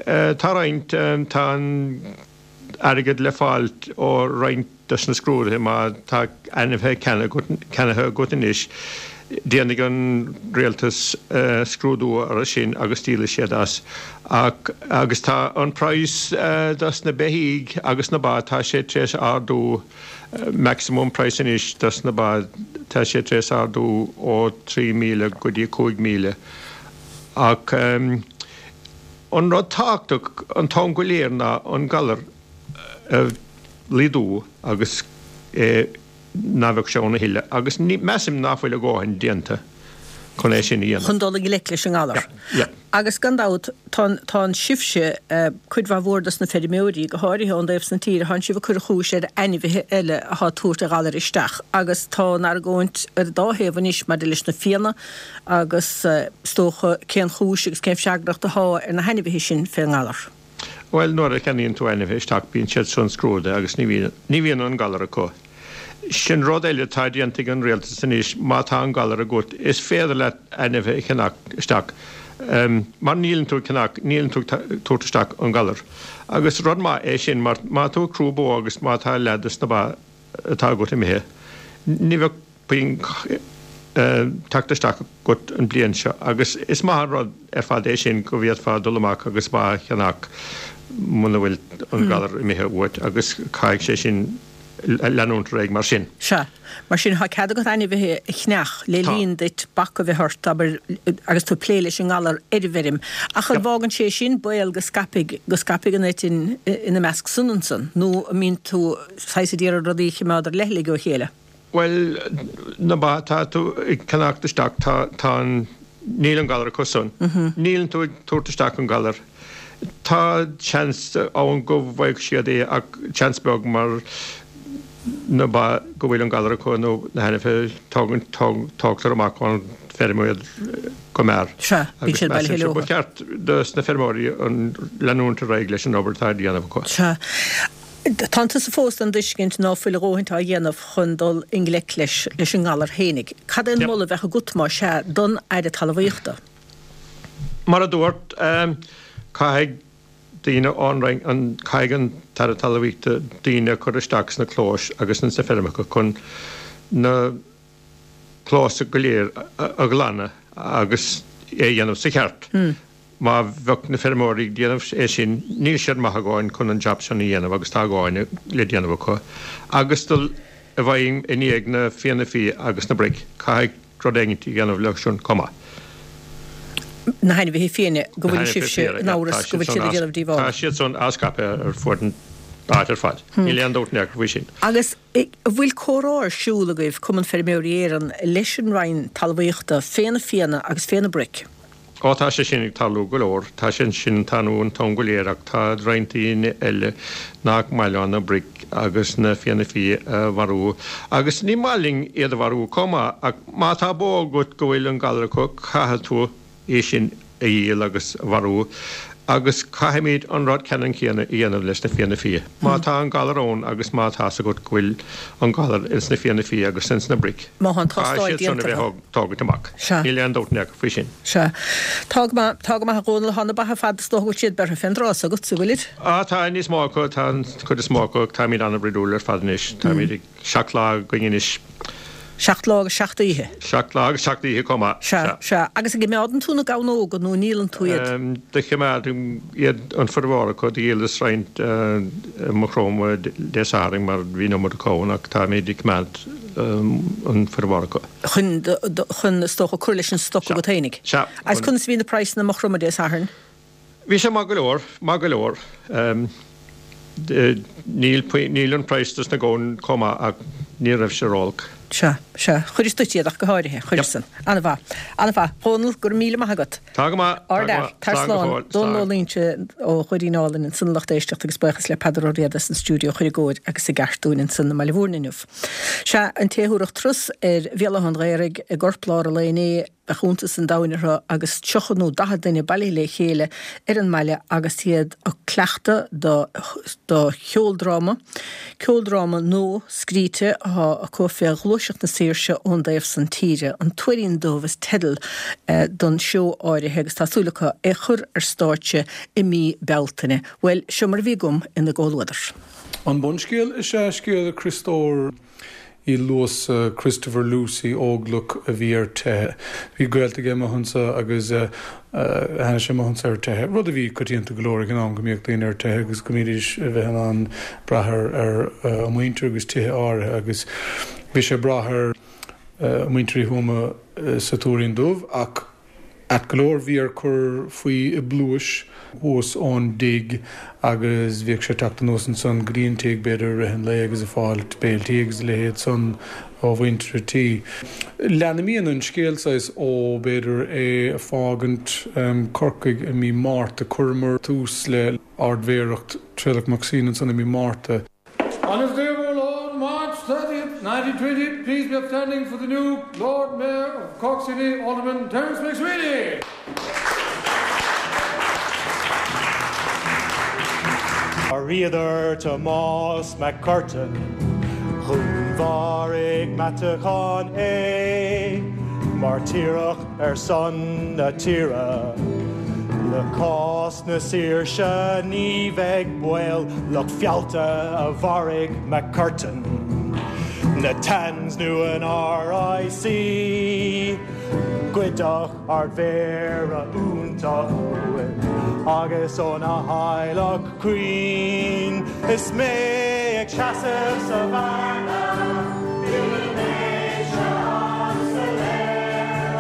Tá roinnt, tá an airgead le fáil ó roinnt dos na scrúduithe má tá ainmhithe ceannaithe agat anois. Déanfaidh an rialtas scrúdú orthu sin agus díolfaidh siad as. Ach, agus tá an praghas dos na beithígh agus na ba, tá sé tar éis ardú, maximum price anois dos na ba, tá sé tar éis ardú ó 3,000 go dtí 5,000. Ach an rud tábhachtach an t-am go léir ná an galar a laghdú agus é ná bheadh sé ann a thuilleadh agus measaim ná fuil a dhóthain déanta chun é sin a dhéanamh. chun dul i ngleic leis an ngalar. Yeah, yeah. Agus gan dabht, tá tá sibhse, cuid mhaith mhór dos na feirmeoirí, go háirithe ón dtaobh san tíre, thánn sibh ag cur an chúis ar ainmhithe eile athá ag tabhairt an ghalair isteach agus tá an argóint ar an dá thaobh anois maidir leis na fianna agus is dócha cén chúis agus cén freagracht athá ar na hainmhithe sin fén ngalar. Bhuel, nuair a cheannaíonn tú ainmhithe isteach bíonn siad san scrúdaithe agus ní bhíonn, ní bhíonn an galar acu. Sin rud eile atá déanta ag an rialtas anois, má tá an galar agat, is féidir leat ainmhithe a cheannach isteach mar níleann tú ag ceannach, níleann tú ag tabhairt isteach an galar. Agus rud maith é sin mar má tá tú ag crú bó agus má tá leath dos na ba atá agat imithe, ní bheadh puinn teacht isteach agat an bliain seo agus is maith an rud ar fad é sin go bhféadfá dul amach agus ba a cheannach muna bhfuil an galar imithe uait agus caithfidh sé sin leanúint ar aghaidh mar sin. Sea. Mar sin, tá cead agat ainmhithe a cheannach le linn duit bac a bheith ort, abair, agus tú ag plé leis an ngalar ar an bhfeirm. Ach an bhfágann sé sin baol go scaipfidh, go scaipfidh an eitinn ina measc san ansan? Nó an mbíonn tú saghas ag iarraidh rudaí a chimeád ar leithligh ó chéile? Bhuel, na ba atá tú ag ceannacht isteach, tá, tá an, níl an galar acu san. Níleann tú ag tabhairt isteach an galar. Tá seans ann go bhfaigheadh siad é ach seans beag mar na ba go bhfuil an galar acu nó na hainmhithe, tógann, tógtar amach ón bhfeirm iad go mear. Sea, bíonn siad bailithe leo. Ba cheart dos na feirmeoirí an leanúint ar aghaidh leis an obair atá á dhéanamh acu. Sea. Tánn tusa fós den dtuiscint ná fuil a dhóthaint á dhéanamh chun dul i ngleic leis leis an ngalar fhéinig. Cad é an moladh a bheadh agat, má sea, don Aire Talmhaíochta? Mar a dúrt, caithfidh daoine ón Roinn, an, caithfidh an tAire Talmhaíochta daoine a chur isteach sna clóis agus ins na feirmeacha chun na clóis go léir a ghlanadh agus é a dhéanamh sa cheart. Má bheadh na feirmeoirí ag déanamh é sin, níl siad maith a dhóthain chun an jab sin a dhéanamh agus tá a dhóthain le déanamh acu. Agus dul i bhfeidhm i ndiaidh na fianna fia agus na broic, caithfidh rud éigint a dhéanamh leo sin chomh maith. Na hainmhithe fiaine, go bhfuil sibhse in amhras go bhfuil siad ag déanamh díobhála. Tá siad san á scaipeadh ar fuaid an áit ar fad. Níl aon dabht in aon chor faoi sin. Agus an bhfuil comhrá ar siúl agaibh, Cumann Feirmeoirí Éireann, leis an Roinn Talmhaíochta fé na fianna agus fé na broic? Ó tá sé sin ag tarlú go leor, tá sé sin ag tarlú an t-am go léir ach tá roinnt daoine eile nach maith leo na broic agus na fianna fia a mharú agus ní maith linn iad a mharú chomh maith ach má tá bó agat go bhfuil an galar acu caithfidh tú í sin a dhíol agus a mharú agus caithfimid an rud ceannann céanna a dhéanamh leis na fianna fia. Má tá an galar ann agus má tá's agat go bhfuil an galar ins na fianna fia agus ins na broic, Má tá an tástáil caithfidh siad san a déanta bheith á tógaint amach. Sea. Níl aon dabht in aon chor faoi sin. Sea. Tá go maith, tá go maith a Dhónaill, tá na ba ar fad, is dócha go bhfuil siad beirthe fén dtráth s'agat, an bhfuilid? Á, tá níos mó acu, tá an chuid is mó acu, táimid an-bhroidiúil ar fad anois, táimid ag 7 lá againn anois. 7 lá agus 7 oíche. 7 lá agus 7 oíche chomh maith, Sea, sea. Sea. Agus an gcimeádann tú na gamhnóga nó an ndíolann tú iad? Do chimeádaim iad, an formhór acu, do dhíolas roinnt i Maigh Chromtha Dé Sathairn mar bhí an iomad acu ann ach táimid ag coimeád an formhór acu. Chun, chun, is dócha, cur leis an stoc agat fhéinig. Sea. Agus conas a bhí na praghsanna i Maigh Chromtha Dé Sathairn? Bhí sé maith go leor, maith go leor. Níl, níl an praghas dos na gamhain chomh maith ach ní raibh sé ró-olc. Sea, sea. Chuiris duit iad ach go háirithe. Chuiris san. An-mhaith. An-mhaith. Dhónall, go raibh míle maith agat. Tá go maith, tá go maith. Tar Slán go slán. fóill. Dónall Ó Loingsigh ó Dhoirín Álainn ansan a lucht éisteachta agus buíochas le Peadar Ó Riada as an stiúideo a chur i gcóir agus i gceart dúinn ansan i mBaile Mhúirne inniu. Sea, an té a thabharfadh turas ar Bhéal Átha an Ghaorthaidh i gcorplár an lae inné, bheadh iontas an domhain orthu agus 30 nó 40 duine bailithe le chéile ar an mbaile agus iad ag cleachtadh do do cheoldráma, ceoldráma nua scríte atá acu fé Ghluaiseacht na Saoirse ón dtaobh san tíre. An Tuairín Dubh is teideal don seó áirithe agus tá súil acu é chur ar stáitse i mí Bealtaine. Bhuel, seo mar a bhí agam ina gcomhluadar. An bunscéal is ea scéal Chriostóir. Uí Luasa, Christopher Lucey, Óglach a bhí ar teitheadh. Bhí gaolta aige amuigh anso agus tháinig sé amuigh anso ar teitheadh, rud a bhí coitianta go leor ag an am go mbíodh daoine ar teitheadh agus go mbídís a bheith in ann brath ar a muintir agus tithe áirithe agus bhí sé ag brath ar mhuintir Uí Thuama sa Tuairín Dubh ach Ait go leor bhí air cur faoi i bpluais thuas ón dtigh agus bhíodh sé ag teacht anuas ansan go dtí an tigh b'fhéidir i rith an lae agus ag fáil béiltí agus a leithéid san ó mhuintir an tí. Lean imíonn an scéal saghas ó b'fhéidir é ag fágaint Corcaigh i mí Márta, chuireamar tús le Ardmhéaracht Traolach Mac Suibhne ansan i mí Márta. On this day of our Lord, March 30th, 1920, please be upstanding for the new Lord Mayor of Cork City, Alderman Terence MacSwiney. Mharaíodar Tomás Mac Curtain, Dhúnmharaigh Meatachán é, Mairtíreach ar son na tíre. Le cás na saoirse ní bheidh baol, lucht feallta a mharaigh MacCurtain, na Tans nó an RIC. Goideadh Ardmhéara iontach uainn agus óna theaghlach caoin. Is mé ag seasamh sa bhearna, níl an méid seo an-soiléir,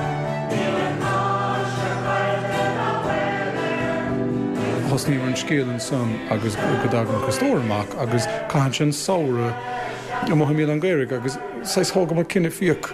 níl an áise caillte ná baol air. Thosnaíomar an scéal ansan agus go dtagann Criostóir amach agus caitheann sé an samhradh amuigh i mBéal Átha an Ghaorthaidh agus saghas thógamar cinneadh fiach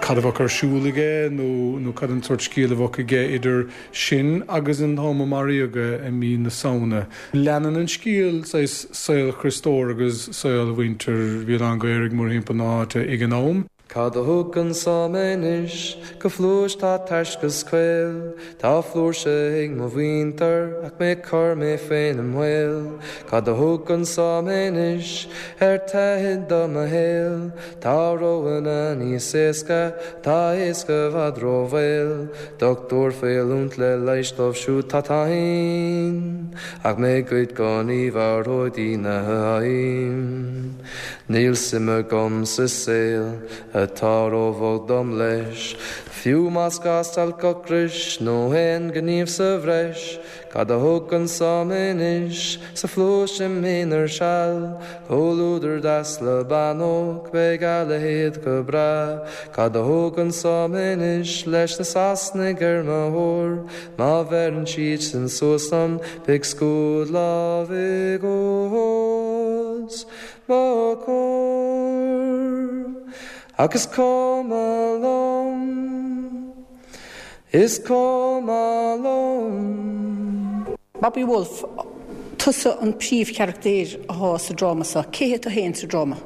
cad a bheadh ar siúl aige nó cad an sórt scéal a bheadh aige idir sin agus an t-am a maraíodh é i mí na Samhna. Leanann an scéal saghas saol Chriostóir agus saol mhuintir Bhéal Átha an Ghaorthaidh mórthimpeall na háite ag an am. Cad a thug anso mé anois go phluais tá tairsc is caol, Tá flúirse ag mo mhuintir ach mé cur mé féin i mbaol. Cad a thug anso mé anois ar teitheadh do mo shaol, Tá roghanna níos éasca, tá éasca i bhfad rómhaol. Dochtúir faoi oiliúint le leighis dóibh siúd tá tinn, Ach mé goid go ní mharóidh daoine ainn. Níl suim agam sa saol atá róbhocht dom leis, Fiú más gá stailc ocrais nó aon ghníomh sa bhreis, Cad a thug anso mé anois sa phluais im aonar seal, Comhluadar deas le bean óg, beidh a leithéid go breá. Cad a thug anso mé anois leis na Sasanaigh ar mo thóir, Má bheireann siad sin suas liom beidh scuad lámhaigh os mo chomhair. Ach is cuma liom. Is cuma liom. Bobby Woulfe, tusa an príomhcharachtar athá sa dráma seo. Cé hé tú féin sa dráma?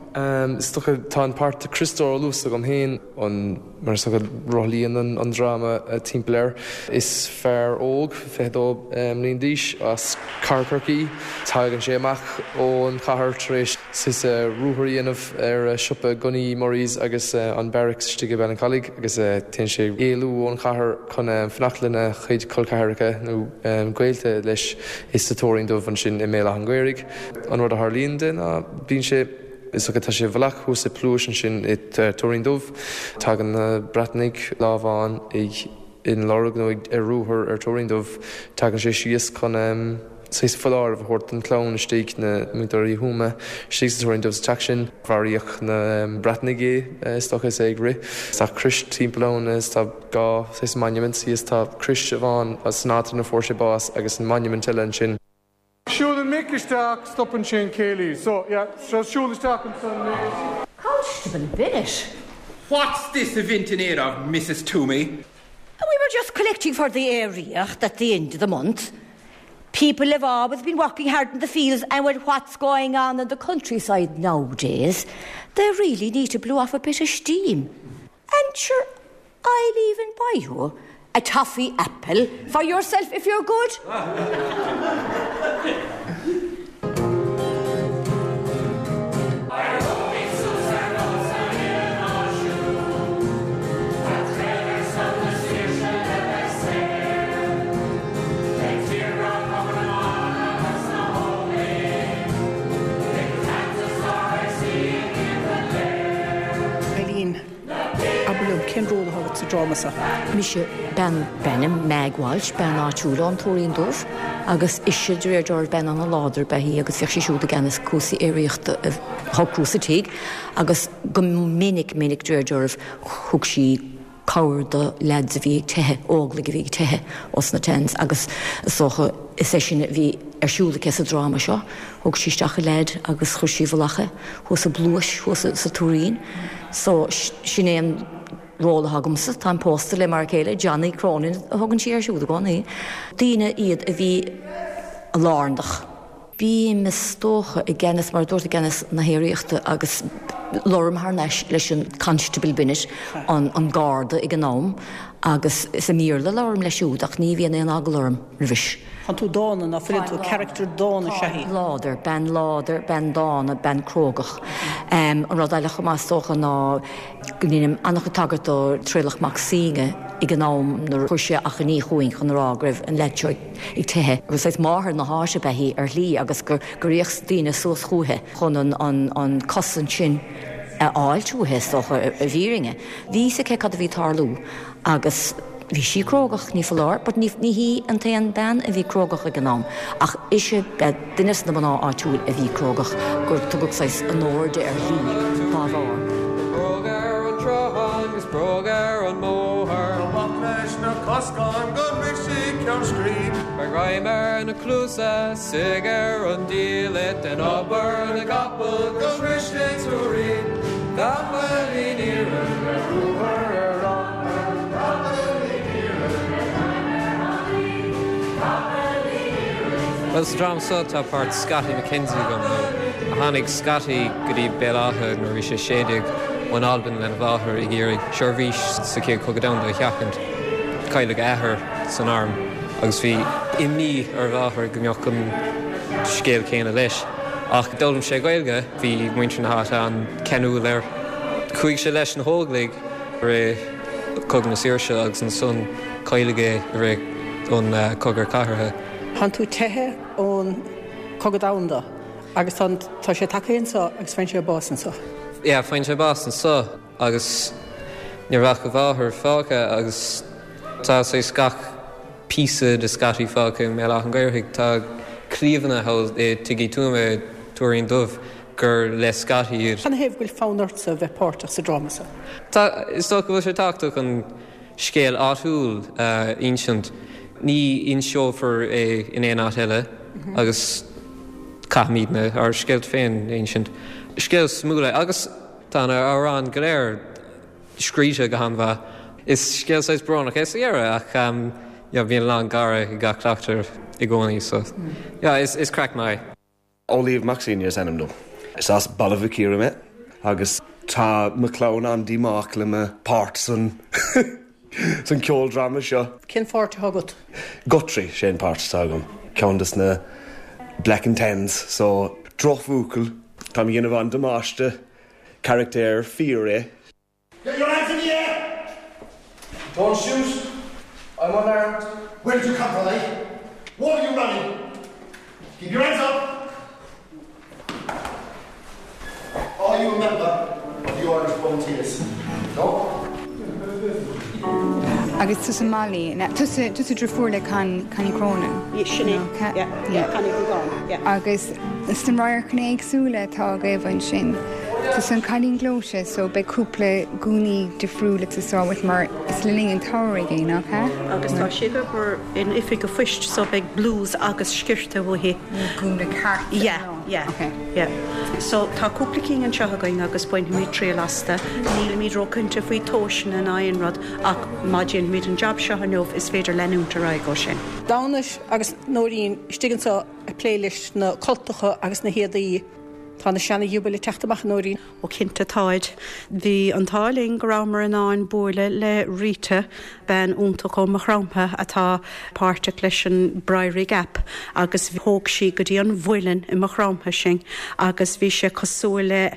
Is dócha, tá an páirt Criostóir Ó Luasa agam féin, an, mar is dócha, rothlaíonn an dráma timpeall air. Is fear óg, 22 mbliain d'aois, as Cathair Chorcaí. Tagann sé amach ón chathair tar éis saghas ruathar a dhéanamh ar siopa gunnaí Murray's agus an Barracks istigh i Ballincollig agus téann sé éalú ón chathair chun fanacht lena chuid col ceathracha nó gaolta leis sa Tuairín Dubh ansin i mBéal Átha an Ghaorthaidh. An rud a tharlaíonn de ná bíonn sé, is dócha, tá sé i bhfolach thuas i bpluais ansin i Tuairín Dubh. Tagann na Breatanaigh lá amháin ag ina lorg nó ag ar ruathar ar Tuairín Dubh. Tagann sé síos chun saghas foláireamh a thabhairt don chlann istigh, na muintir Uí Thuama istigh sa Tuairín Dubh sa teach sin. Mharaíodh na Breatanaigh é, is dócha, is é ag rith. Tá crois timpeall ann is tá dhá saghas monument thíos. Tá crois amháin san áit ina fuair sé bás agus an monument eile ansin. Siúlann Mick isteach, stopann sé an céilí. So, yeah, so siúl isteach ansan, Mick. Constable Bennett. What's this event in aid of, Mrs Toomey? We were just collecting for the aeraíocht at the end of the month. People have always been working hard in the fields and with what's going on in the countryside nowadays, they really need to blow off a bit of steam. And sure, I'll even buy you a toffee apple for yourself if you're good. Cén ról atá agat sa dráma seo? Mise bean d'ainm Meg Walsh, bean áitiúil ón Tuairín Dubh agus ise de réir dealraimh bean an-láidir ab ea í agus bhíodh sí siúd i gceannas cúrsaí aeraíochta a shocrú sa tigh agus go minic minic de réir dealraimh thug sí cabhair do leaids a bhí ag teitheadh, óglaigh a bhí ag teitheadh ós na Tans agus is dócha is é sin a bhí ar siúl aici sa dráma seo. Thóg sí isteach an leaid agus chuir sí i bhfolach é thuas i bpluais thuas sa Tuairín. So sin é an ról atá agamsa. Táim pósta le m'fhear céile, Johnny Cronin a thugann sí air siúd i gcónaí. Daoine iad a bhí lárnach. Bím, is dócha, i gceannas, mar a dúrt, i gceannas na haeraíochta agus labhraím thar n-ais leis an Constable Bennett, an garda ag an am, agus is i mBéarla a labhraím leis siúd ach ní bhíonn aon eagla orm roimhis. Tánn tú dána, ná fuileann tú? Character dána is ea í. Láidir, bean láidir, bean dána, bean crógach. An rud eile chomh maith is dócha ná go ndeinim an-chuid tagairt do Traolach Mac Suibhne ag an am nuair a chuir sé achainí chugainn chun a rá go raibh an leaid seo ag ag teitheadh, gur saghas máthair na háite ab ea í ar shlí agus gur fhéach daoine suas chúithi chun an cosaint sin a fháilt uaithi, is dócha, i bhfírinne. Bhí fhios aici cad a bhí ag tarlú agus bhí sí crógach, ní foláir, but ní hí an t-aon bean a bhí crógach ag an am, ach ise ba duine de na mná áitiúil a bhí crógach, gur tugadh saghas onóir di ar shlí dá bharr. Bróg ar an tsruthán 'gus bróg ar an mbóthar. Amach leis na coscáin go sroichfidh ceann scríbe. Beidh greim ar na cluasa, suigh ar an diallait, dein obair na gcapall go sroichfidh Tuairín. Capaillín iarainn ar ruathar ar an Capaillín iarainn Bhuel, sa dráma seo tá páirt Scottie McKenzie agam. Tháinig Scottie go dtí Béal Átha nuair a bhí sé 16 ón Albain lena mháthair ag iarraidh seirbhís sa Chéad Chogadh Domhanda a sheachaint. Cailleadh a athair san arm agus bhí imní ar a mháthair go mbeadh an scéal céanna leis. Ach d'fhoghlaim sé Gaeilge, bhí muintir na háite an-cheanúil air. Chuaigh sé leis na hÓglaigh i rith Cogadh na Saoirse agus ansan cailleadh é i rith an Cogadh Cathartha. Tánn tú teithe ón Cogadh Domhanda agus tá tá sé tagtha anso agus faigheann sé bás anso. Yeah, faigheann sé bás anso agus ní raibh ach a mháthair fágtha agus tá saghas gach píosa de Scottie fágtha i mBéal Átha an Ghaorthaidh. Tá cliabhna thall i Tigh Uí Tuama i Tuairín Dubh gur le Scottie iad. Canathaobh go bhfuil fonn ortsa bheith páirteach sa dráma seo? Tá, is dócha go bhfuil sé tábhachtach an scéal áitiúil a insint. Ní inseofar é in aon áit eile agus caithfimidne ár scéalta féin a insint. Scéal suimiúil é agus tá na hamhráin go léir scríte go han-mhaith. Is scéal saghas brónach é sa dheireadh ach yeah bíonn a lán gáire i gach cleachtadh i gcónaí so yeah is craic maith é. Amhlaoibh Mac Suibhne is ainm dom. Is as Baile Mhic Íre mé agus tá mo chlann an-díomách le mo páirt san san ceoldráma seo. Cén pháirt atá agat? Guthrie, sé an páirt atá agam. Ceann des na Black and Tans, so drochbhuachaill. Táim ag déanamh an-damáiste. Carachtar fíor é. Get your hands in the air! Don't shoot! I'm unarmed. Where did you come from, eh? Why are you running? Keep your hands up! Are you a member of the Irish Volunteers? No? Agus tusa Molly, tusa tusa deirfiúr le Con Connie Cronin? Sin é, yeah, yeah, Connie Hogan, yeah. Agus sna radharcanna éagsúla atá agaibh ansin, tusa an cailín gleoite so beidh cúpla gúnaí difriúla ag teastáil uait mar is le linn an tsamhraidh é, nach ea? Agus tá sí ag obair in oifig an phoist so beidh blús agus sciorta uaithi. Gúna ceart. Yeah, yeah, Okay. yeah. So tá cúpla cinn anseo againn agus bainfimid triail astu. Nílimid róchinnte faoi tomhaiseanna ná aon rud ach má déanfaimid an jab seo inniu is féidir leanúint ar aghaidh ó sin. Damhnait agus Nóirín istigh anseo ag plé leis na cultacha agus na héadaí. Tá na seana-ghiobaill ag teacht amach, a Nóirín. Ó cinnte táid. Bhí an t-ádh linn go rabhamar in ann buaileadh le Rita, bean iontach ó Maigh Chromtha atá páirteach leis an Briery Gap agus thóg sí go dtí an mhuileann i Maigh Chromtha sinn agus bhí sé cosúil le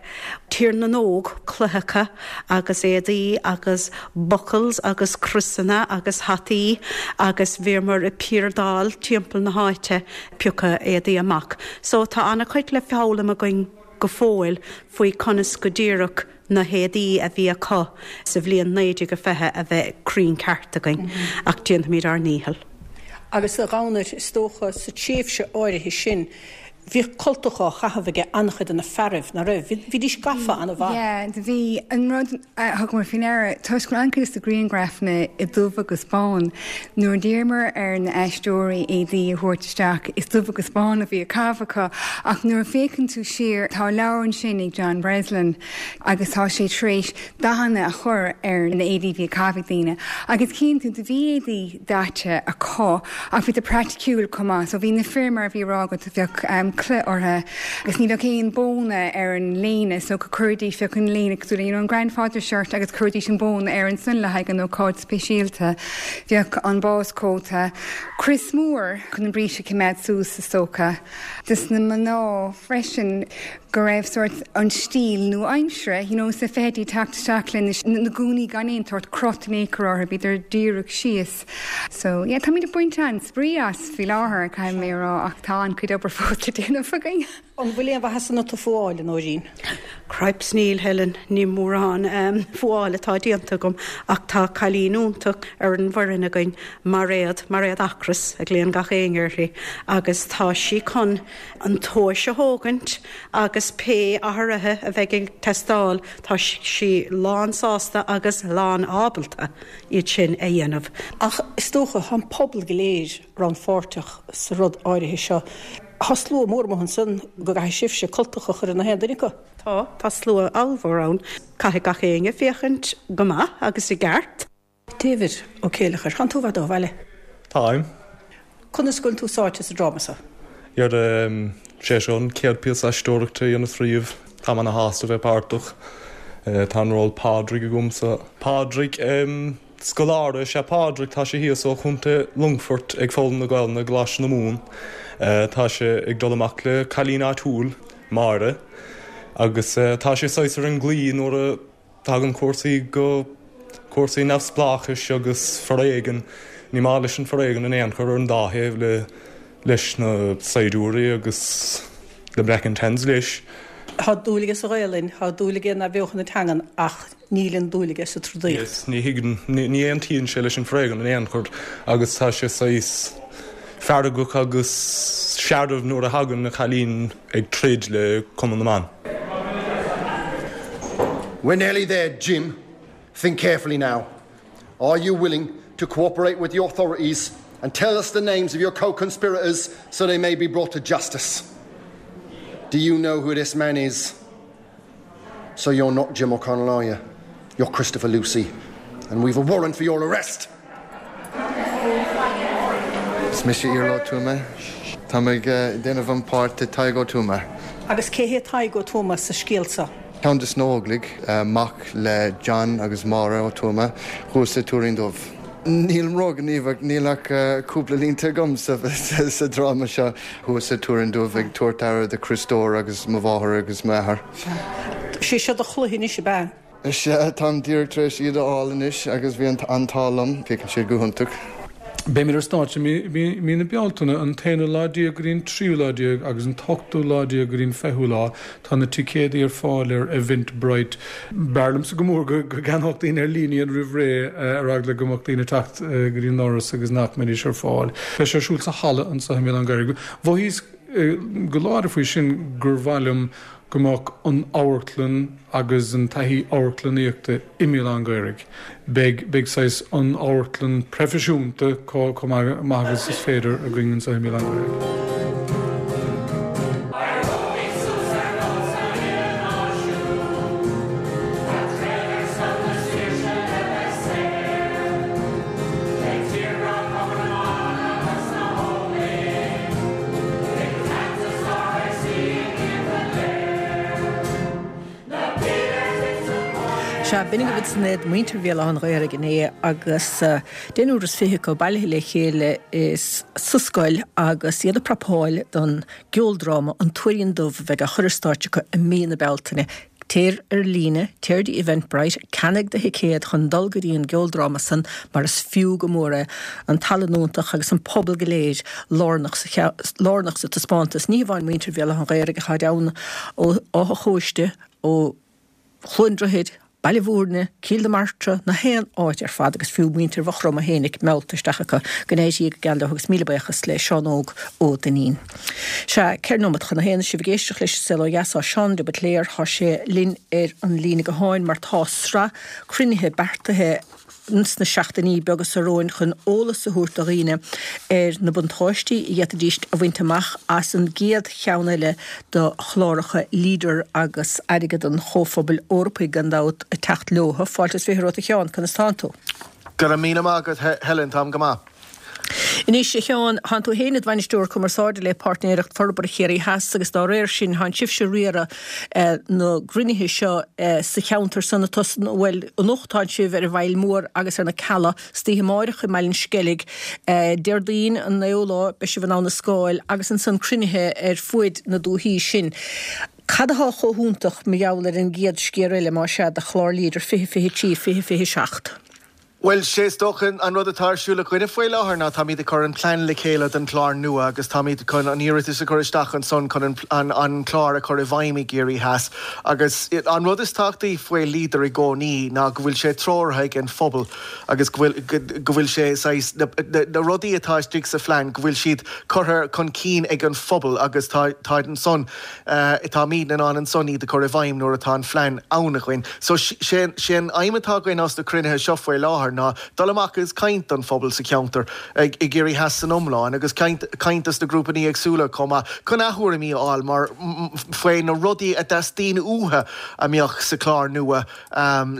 Tír na nÓg, cloicheacha agus éadaí agus buckles agus criosanna agus hataí agus bhíomar ag piardáil timpeall na háite ag piocadh éadaí amach. So tá an-chuid le foghlaim againn. go fóill faoi conas go díreach na héadaí a bhí acu sa bhliain 1920 a bheith cruinn ceart againn, ach déanfaimid ár ndícheall. Agus a Dhomhnaill, is dócha, sa tréimhse áirithe sin, bhíodh cultacha á chaitheamh aige an-chuid de na fearaibh, ná raibh? Bhídís gafa an-mhaith. Yeah, do bhí. An rud a thugamar faoi ndeara, toisc go raibh an-chuid de na grianghrafanna i dubh agus bán, nuair a d'iarramar ar na aisteoirí éadaí a thabhairt isteach, is dubh agus bán a bhí á caitheamh acu. Ach nuair a féachann tú siar, tá leabhar ansin ag John Breslin agus tá sé tar éis dathanna a chur ar na éadaí a bhí á caitheamh ag daoine. Agus chíonn tú, do bhí éadaí daite acu ach bhí siad praiticiúil chomh maith. So bhí na fir, mar a bhí á rá agat, bheadh culaith orthu agus ní bheadh aon bóna ar an léine so chuiridís, bheadh an léine cosúil le you know an grandfather shirt agus chuiridís an bóna air ansan le haghaidh an ócáid speisialta. Bheadh an báschóta, crios mór chun an bríste a choimeád suas is dócha. Dos na mná freisin go raibh sórt an stíl nua-aimsire, you know, sna fichidí teacht isteach le na gúnaí gan aon tsórt crot in aon chor orthu, bhíodar díreach síos. So, yeah, táimid ag baint an-spraoi as faoi láthair, caithfidh mé a rá, ach tá an-chuid obair fós le déanamh againn. An bhfuil aon mhaitheas ionat a fuáil, a Nóirín? Cripes níl, Helen, ní mórán fuáil atá déanta agam ach tá cailín iontach ar an bhfoireann againn, Mairéad, Mairéad Ocras a ghlaonn gach éinne uirthi, agus tá sí chun an tomhais a thógaint agus pé athruithe a bheidh ag teastáil tá sí lán sásta agus lán ábalta iad sin a dhéanamh. Ach is dócha, tá an pobal go léir rannpháirteach sa rud áirithe seo. Tá slua mór amuigh ansan go gcaithfidh sibhse cultacha a chur ar nach aon duine acu. Tá, tá slua ollmhór ann. Caithfidh gach éinne féachaint go maith agus i gceart. David Ó Céileachair, Tánn tú i bhfad ó bhaile. Táim. Conas go bhfuil tú sáite sa dráma seo? Dhera, sé seo an chéad píosa aisteoireachta a dhéanas riamh. Táim ana shásta bheith páirteach. Tá an ról Pádraig agamsa. Pádraig, Scoláire is ea Pádraig, tá sé thíos ó Chontae Longfoirt ag foghlaim na Gaelainne i gColáiste na Mumhan. Tá sé ag dul amach le cailín áitiúil, Máire, agus tá sé saghas ar an gclaí nuair a Tagann cúrsaí go cúrsaí neamhspleáchais agus foréigean. Ní maith leis an foréigean in aon chor ar an dá thaobh le leis na saighdiúirí agus le Black and Tans leis. Tá dúil aige sa Ghaelainn, tá dúil aige in athbheochan na teangan ach níl an dúil aige sa trodaíocht. Yes, ní thuigeann, ní aontaíonn sé leis an foréigean in aon chor agus tá sé saghas feargach agus searbh nuair a thagann an cailín ag troid le Cumann na mBan. We're nearly there, Jim. Think carefully now. Are you willing to cooperate with the authorities and tell us the names of your co-conspirators so they may be brought to justice? Do you know who this man is? So you're not Jim O'Connell, are you? You're Christopher Lucy, and we've a warrant for your arrest. Is mise Iarla Ó Tuama. Táim ag déanamh an páirt de Tadhg Ó Tuama. Agus cé hé Tadhg Ó Tuama sa scéal seo? Ceann de sna hÓglaigh, mac le John agus Máire Ó Tuama, thuas sa Tuairín Dubh. Nílim róghníomhach, níl ach cúpla línte agam sa dráma seo. Thuas sa Tuairín Dubh ag tabhairt aire do Chriostóir agus mo mháthair agus m'athair. Sé seo do chluiche anois, ab ea? Sea, táim díreach tar éis iad a fháil anois agus bhí an t-ádh liom. Féachann siad go hiontach. Beimid ar stáitse i mí na Bealtaine, an t-aonú lá déag go dtí an tríú lá déag agus an t-ochtú lá déag go dtí an fichiú lá. Tá na ticéadaí ar fáil ar Eventbrite. B'fhearr liomsa go mór go gceannódh daoine ar líne iad roimh ré ar eagla go mbeadh daoine ag teacht go dtí an doras agus nach mbeidís ar fáil. Beidh sé ar siúl sa halla anseo i mBéal Átha an Ghaorthaidh. Mhothaíos go láidir faoi sin gur mhaith liom go mbeadh an amharclann agus an taithí amharclannaíochta i mBéal Átha an Ghaorthaidh. Beidh, beidh saghas an amharclann proifisiúnta chomh maith agus is féidir againn anseo i mBéal Átha an Ghaorthaidh. Sea, b'in agaibh ansan iad, muintir Bhéal Átha an Ghaorthaidh inné agus deichniúr is 20 acu bailithe le chéile sa scoil agus iad ag prapáil don gceoldráma An Tuairín Dubh a bheidh á chur ar stáitse acu i mí na Bealtaine. Téir ar líne, téir dtí Eventbrite, ceannaigh do thicéad chun dul go dtí an gceoldráma san mar is fiú go mór é, an tallann iontach agus an pobal go léir lárnach sa lárnach sa taispeántas. Ní hamháin muintir Bhéal Átha an Ghaorthaidh ach táid ann ó Áth a' Chóiste, ó Chluain Droichid, Baile Bhúirne, Cill na Martra, na haon áit ar fad agus fiú muintir Mhaigh Chromtha fhéinig meallta isteach acu. Go n-éirí go geal leo agus míle buíochas le Seán Óg Ó Duinnín. Sea, 4 nóimeat chun a haon, sibh ag éisteacht leis an Saol Ó Dheas, tá Seán de Buitléar, tá sé linn ar an líne gutháin mar tá sraith cruinnithe beartaithe sna seachtainí beaga seo romhainn chun eolas a thabhairt do dhaoine ar na buntáistí a d'fhéadfaidís a bhaint amach as an gcéad cheann eile de chláracha Leader agus airgead an Chomhphobail Eorpaigh gan dabht ag teacht leo. Fáilte is 20 romhat a Sheáin, conas tánn tú? Go raibh míle maith agat Helen, táim go maith. Anois, a Sheáin, thánn tú féin id bhainisteoir cumarsáide le Páirtnéireacht Forbartha Chiarraí Theas agus dá réir sin thánn sibhse ag riaradh na gcruinnithe seo sa cheantar san atá san, bhuel, anocht tánn sibh ar an bhFaill Mhór agus ar na Cealla, istoíche amáireach i mBaile an Sceilg, Déardaoin an 9ú lá beidh sibh in Abha na Scáil agus ansan cruinnithe ar fuaid na dúthaí sin. Cad athá chomh hiontach mar gheall ar an gcéad sciar eile, más ea, de chlár Leader 2023, 2027? Bhuel, sé is dócha an rud atá ar siúl againne faoi láthair ná táimid ag cur an plean le chéile don chlár nua agus táimid chun an iarratas a chur isteach ansan chun an an clár a chur i bhfeidhm i gCiarraí Theas. Agus an rud is tábhachtaí faoi Leader i gcónaí ná go bhfuil sé treoraithe ag an phobal agus go bhfuil go bhfuil sé saghas na na rudaí atá istigh sa phlean go bhfuil siad curtha chun cinn ag an phobal agus tá táid ansan Táimid in ann ansan iad a chur i bhfeidhm nuair atá an phlean ann againn. So, sé an aidhm atá againn as na cruinnithe seo faoi láthair ná dul amach agus caint don phobal sa cheantar i gCiarraí Theas san iomlán agus caint dos na grúpanna éagsúla chomh maith chun a thuairimí a fháil mar faoi na rudaí a dteastaíonn uathu a mbeadh sa chlár nua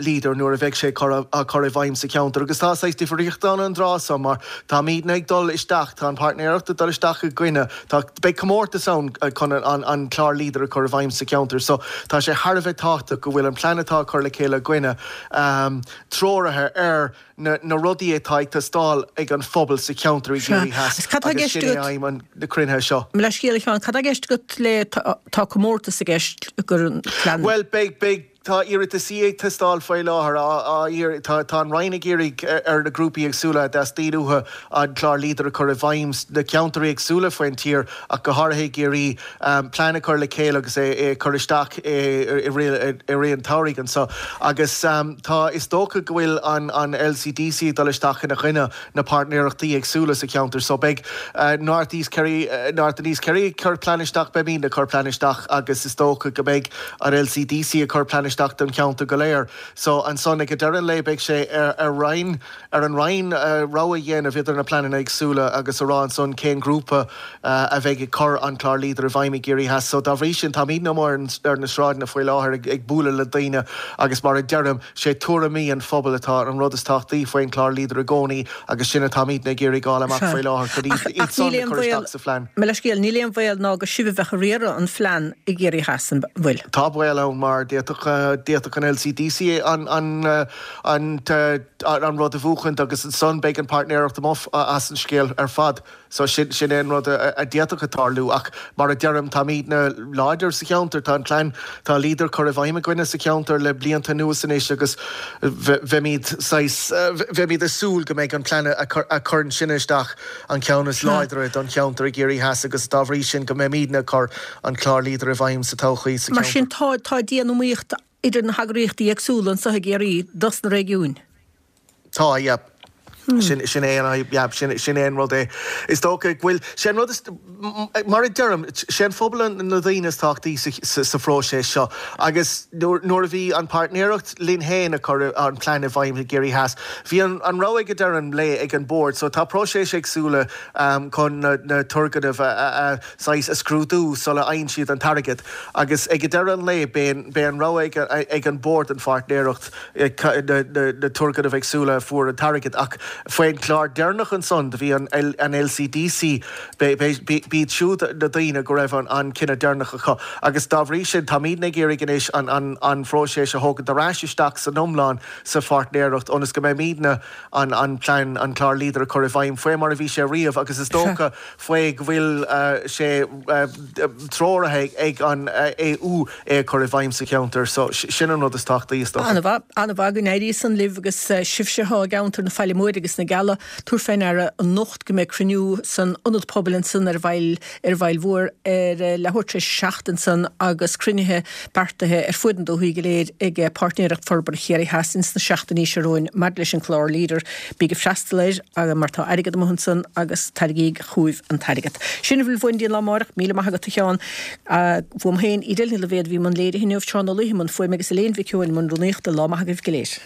Leader nuair a bheidh sé á chur i bhfeidhm sa cheantar agus tá saghas difríocht ann an tráth so mar táimidne ag dul isteach, tá an páirtnéireacht ag dul isteach i gcoinne, tá, beidh comórtas ann chun an clár Leader a chur i bhfeidhm sa cheantar so tá sé thar a bheith tábhachtach go bhfuil an plean atá á chur le chéile againne treoraithe ar na rudaí atá ag teastáil ag an phobal sa cheantar i gCiarraí Theas agus sin é aidhm na cruinnithe seo. Mo leithscéal a Sheáin, cad tá i gceist agat le tá comórtas i gceist gur an plean. Bhuel beidh, beidh. Tá iarrataisí ag teastáil faoi láthair, á iarraidh, tá, tá an Roinn ag iarraidh ar na grúpaí éagsúla a dteastaíonn uathu an clár Leader a chur i bhfeidhm sna ceantair éagsúla faoin tír ach go háirithe i gCiarraí, plean a chur le chéile agus é a chur isteach i rith, i rith an tsamhraidh anso. Agus tá, is dócha go bhfuil an, an LCDC ag dul isteach ina choinne na páirtnéireachtaí éagsúla sa cheantar so beidh North East Kerry, North and East Kerry ag cur plean isteach, beimidne ag cur plean isteach agus is dócha go mbeidh an LCDC ag cur plean isteach don cheantar go léir. So ansan ag deireadh an lae beidh sé ar ar Roinn, ar an Roinn rogha a dhéanamh idir na pleananna éagsúla agus a rá ansan cén grúpa a bheidh ag cur an clár Leader i bhfeidhm i gCiarraí Theas. So dá bhrí sin táimidne amuigh ar na sráideanna faoi láthair ag bualadh le daoine agus mar a deirim, Sé tuairimí an phobail atá an rud is tábhachtaí faoin chlár Leader i gcónaí agus sin atáimidne ag iarraidh fháil amach faoi láthair chun iad Ach san níl a aon chur bhaol, isteach sa phlean. Mo leithscéal, níl aon bhaol ná gur sibh a bheadh ag riaradh an phlean i gCiarraí Theas, an bhfuil? Tá baol ann mar d'fhéadfadh, d'fhéadfadh an LCDC an, an, an, an rud a bhuachaint agus ansan beidh an páirtnéireacht amuigh as an scéal ar fad. So sin, sin é an rud a d'fhéadfadh a tarlú ach mar a deirim, táimidne láidir sa cheantar, tá an plean, tá Leader curtha i bhfeidhm againne sa cheantar le blianta anuas anois agus bheimid saghas, bheimid ag súil go mbeidh an plean a chuireann sinne isteach an ceann is láidre don cheantar i gCiarraí Theas agus dá bhrí sin go mbeimidne ag cur an clár Leader i bhfeidhm sa todhchaí sa Mar sin cheantar. tá, tá dian-iomaíocht idir na heagraíochtaí éagsúla anseo i gCiarraí dos na réigiúin. Tá, yeah. Sin, sin é an, yeah, sin, sin é an rud é. Is dócha go bhfuil, sé an rud is, mar a deirim, sé an phobal an, na daoine is tábhachtaí sa, sa, sa phróiseas seo agus nuair, nuair a bhí an páirtnéireacht linn féin ag cur an plean i bhfeidhm i gCiarraí Theas, bhí an, an rogha ag deireadh an lae ag an bord. So tá próiseas éagsúla chun na, na turgnaimh a, a, a, saghas a scrúdú sula fhaigheann siad an t-airgead agus ag deireadh an lae beidh, beidh an rogha ag, ag an bord an pháirtnéireacht na turgnaimh éagsúla a fuair an t-airgead ach Faoin chlár deireanach ansan do bhí an LCDC, b'iad siúd na daoine go raibh an cinneadh deireanach acu agus dá bhrí sin táimidne ag iarraidh anois an phróiseas a thógaint ar ais isteach san iomlán sa pháirtnéireacht ionas go mbeimidne an plean, an clár Leader a chur i bhfeidhm faoi mar a bhí sé riamh agus is dócha faoi go bhfuil sé treoraithe ag an AU é a chur i bhfeidhm sa cheantar. So, sin an rud is tábhachtaí, is dócha. An-mhaith, an-mhaith go n-éirí san libh agus sibhse atá i gceantar na Faille Móire agus na Geala, tabhair fé ndeara anocht go mbeidh cruinniú san Ionad Pobail ansan ar an bhFaill, ar an bhFaill Mhór ar leathuair tar éis a 7 ansan agus cruinnithe beartaithe ar fuaid na dúthaí go léir ag Páirtnéireacht Forbartha Chiarraí Theas ins na seachtainí seo romhainn maidir leis an clár Leader. Bíg ag freastal air mar tá airgead amuigh ansan agus tairgíg chugaibh an t-airgead. Sin a bhfuil uainn go dtí an lá amárach. Míle maith agat a Sheáin. Uaim féin, Edel Ní Loibhéad a bhí i mbun léirithe inniu, Seán Ó Laoithe i mbun fuaime agus Elaine Mhic Eoin i mbun rúnaíochta. Lá maith agaibh go léir.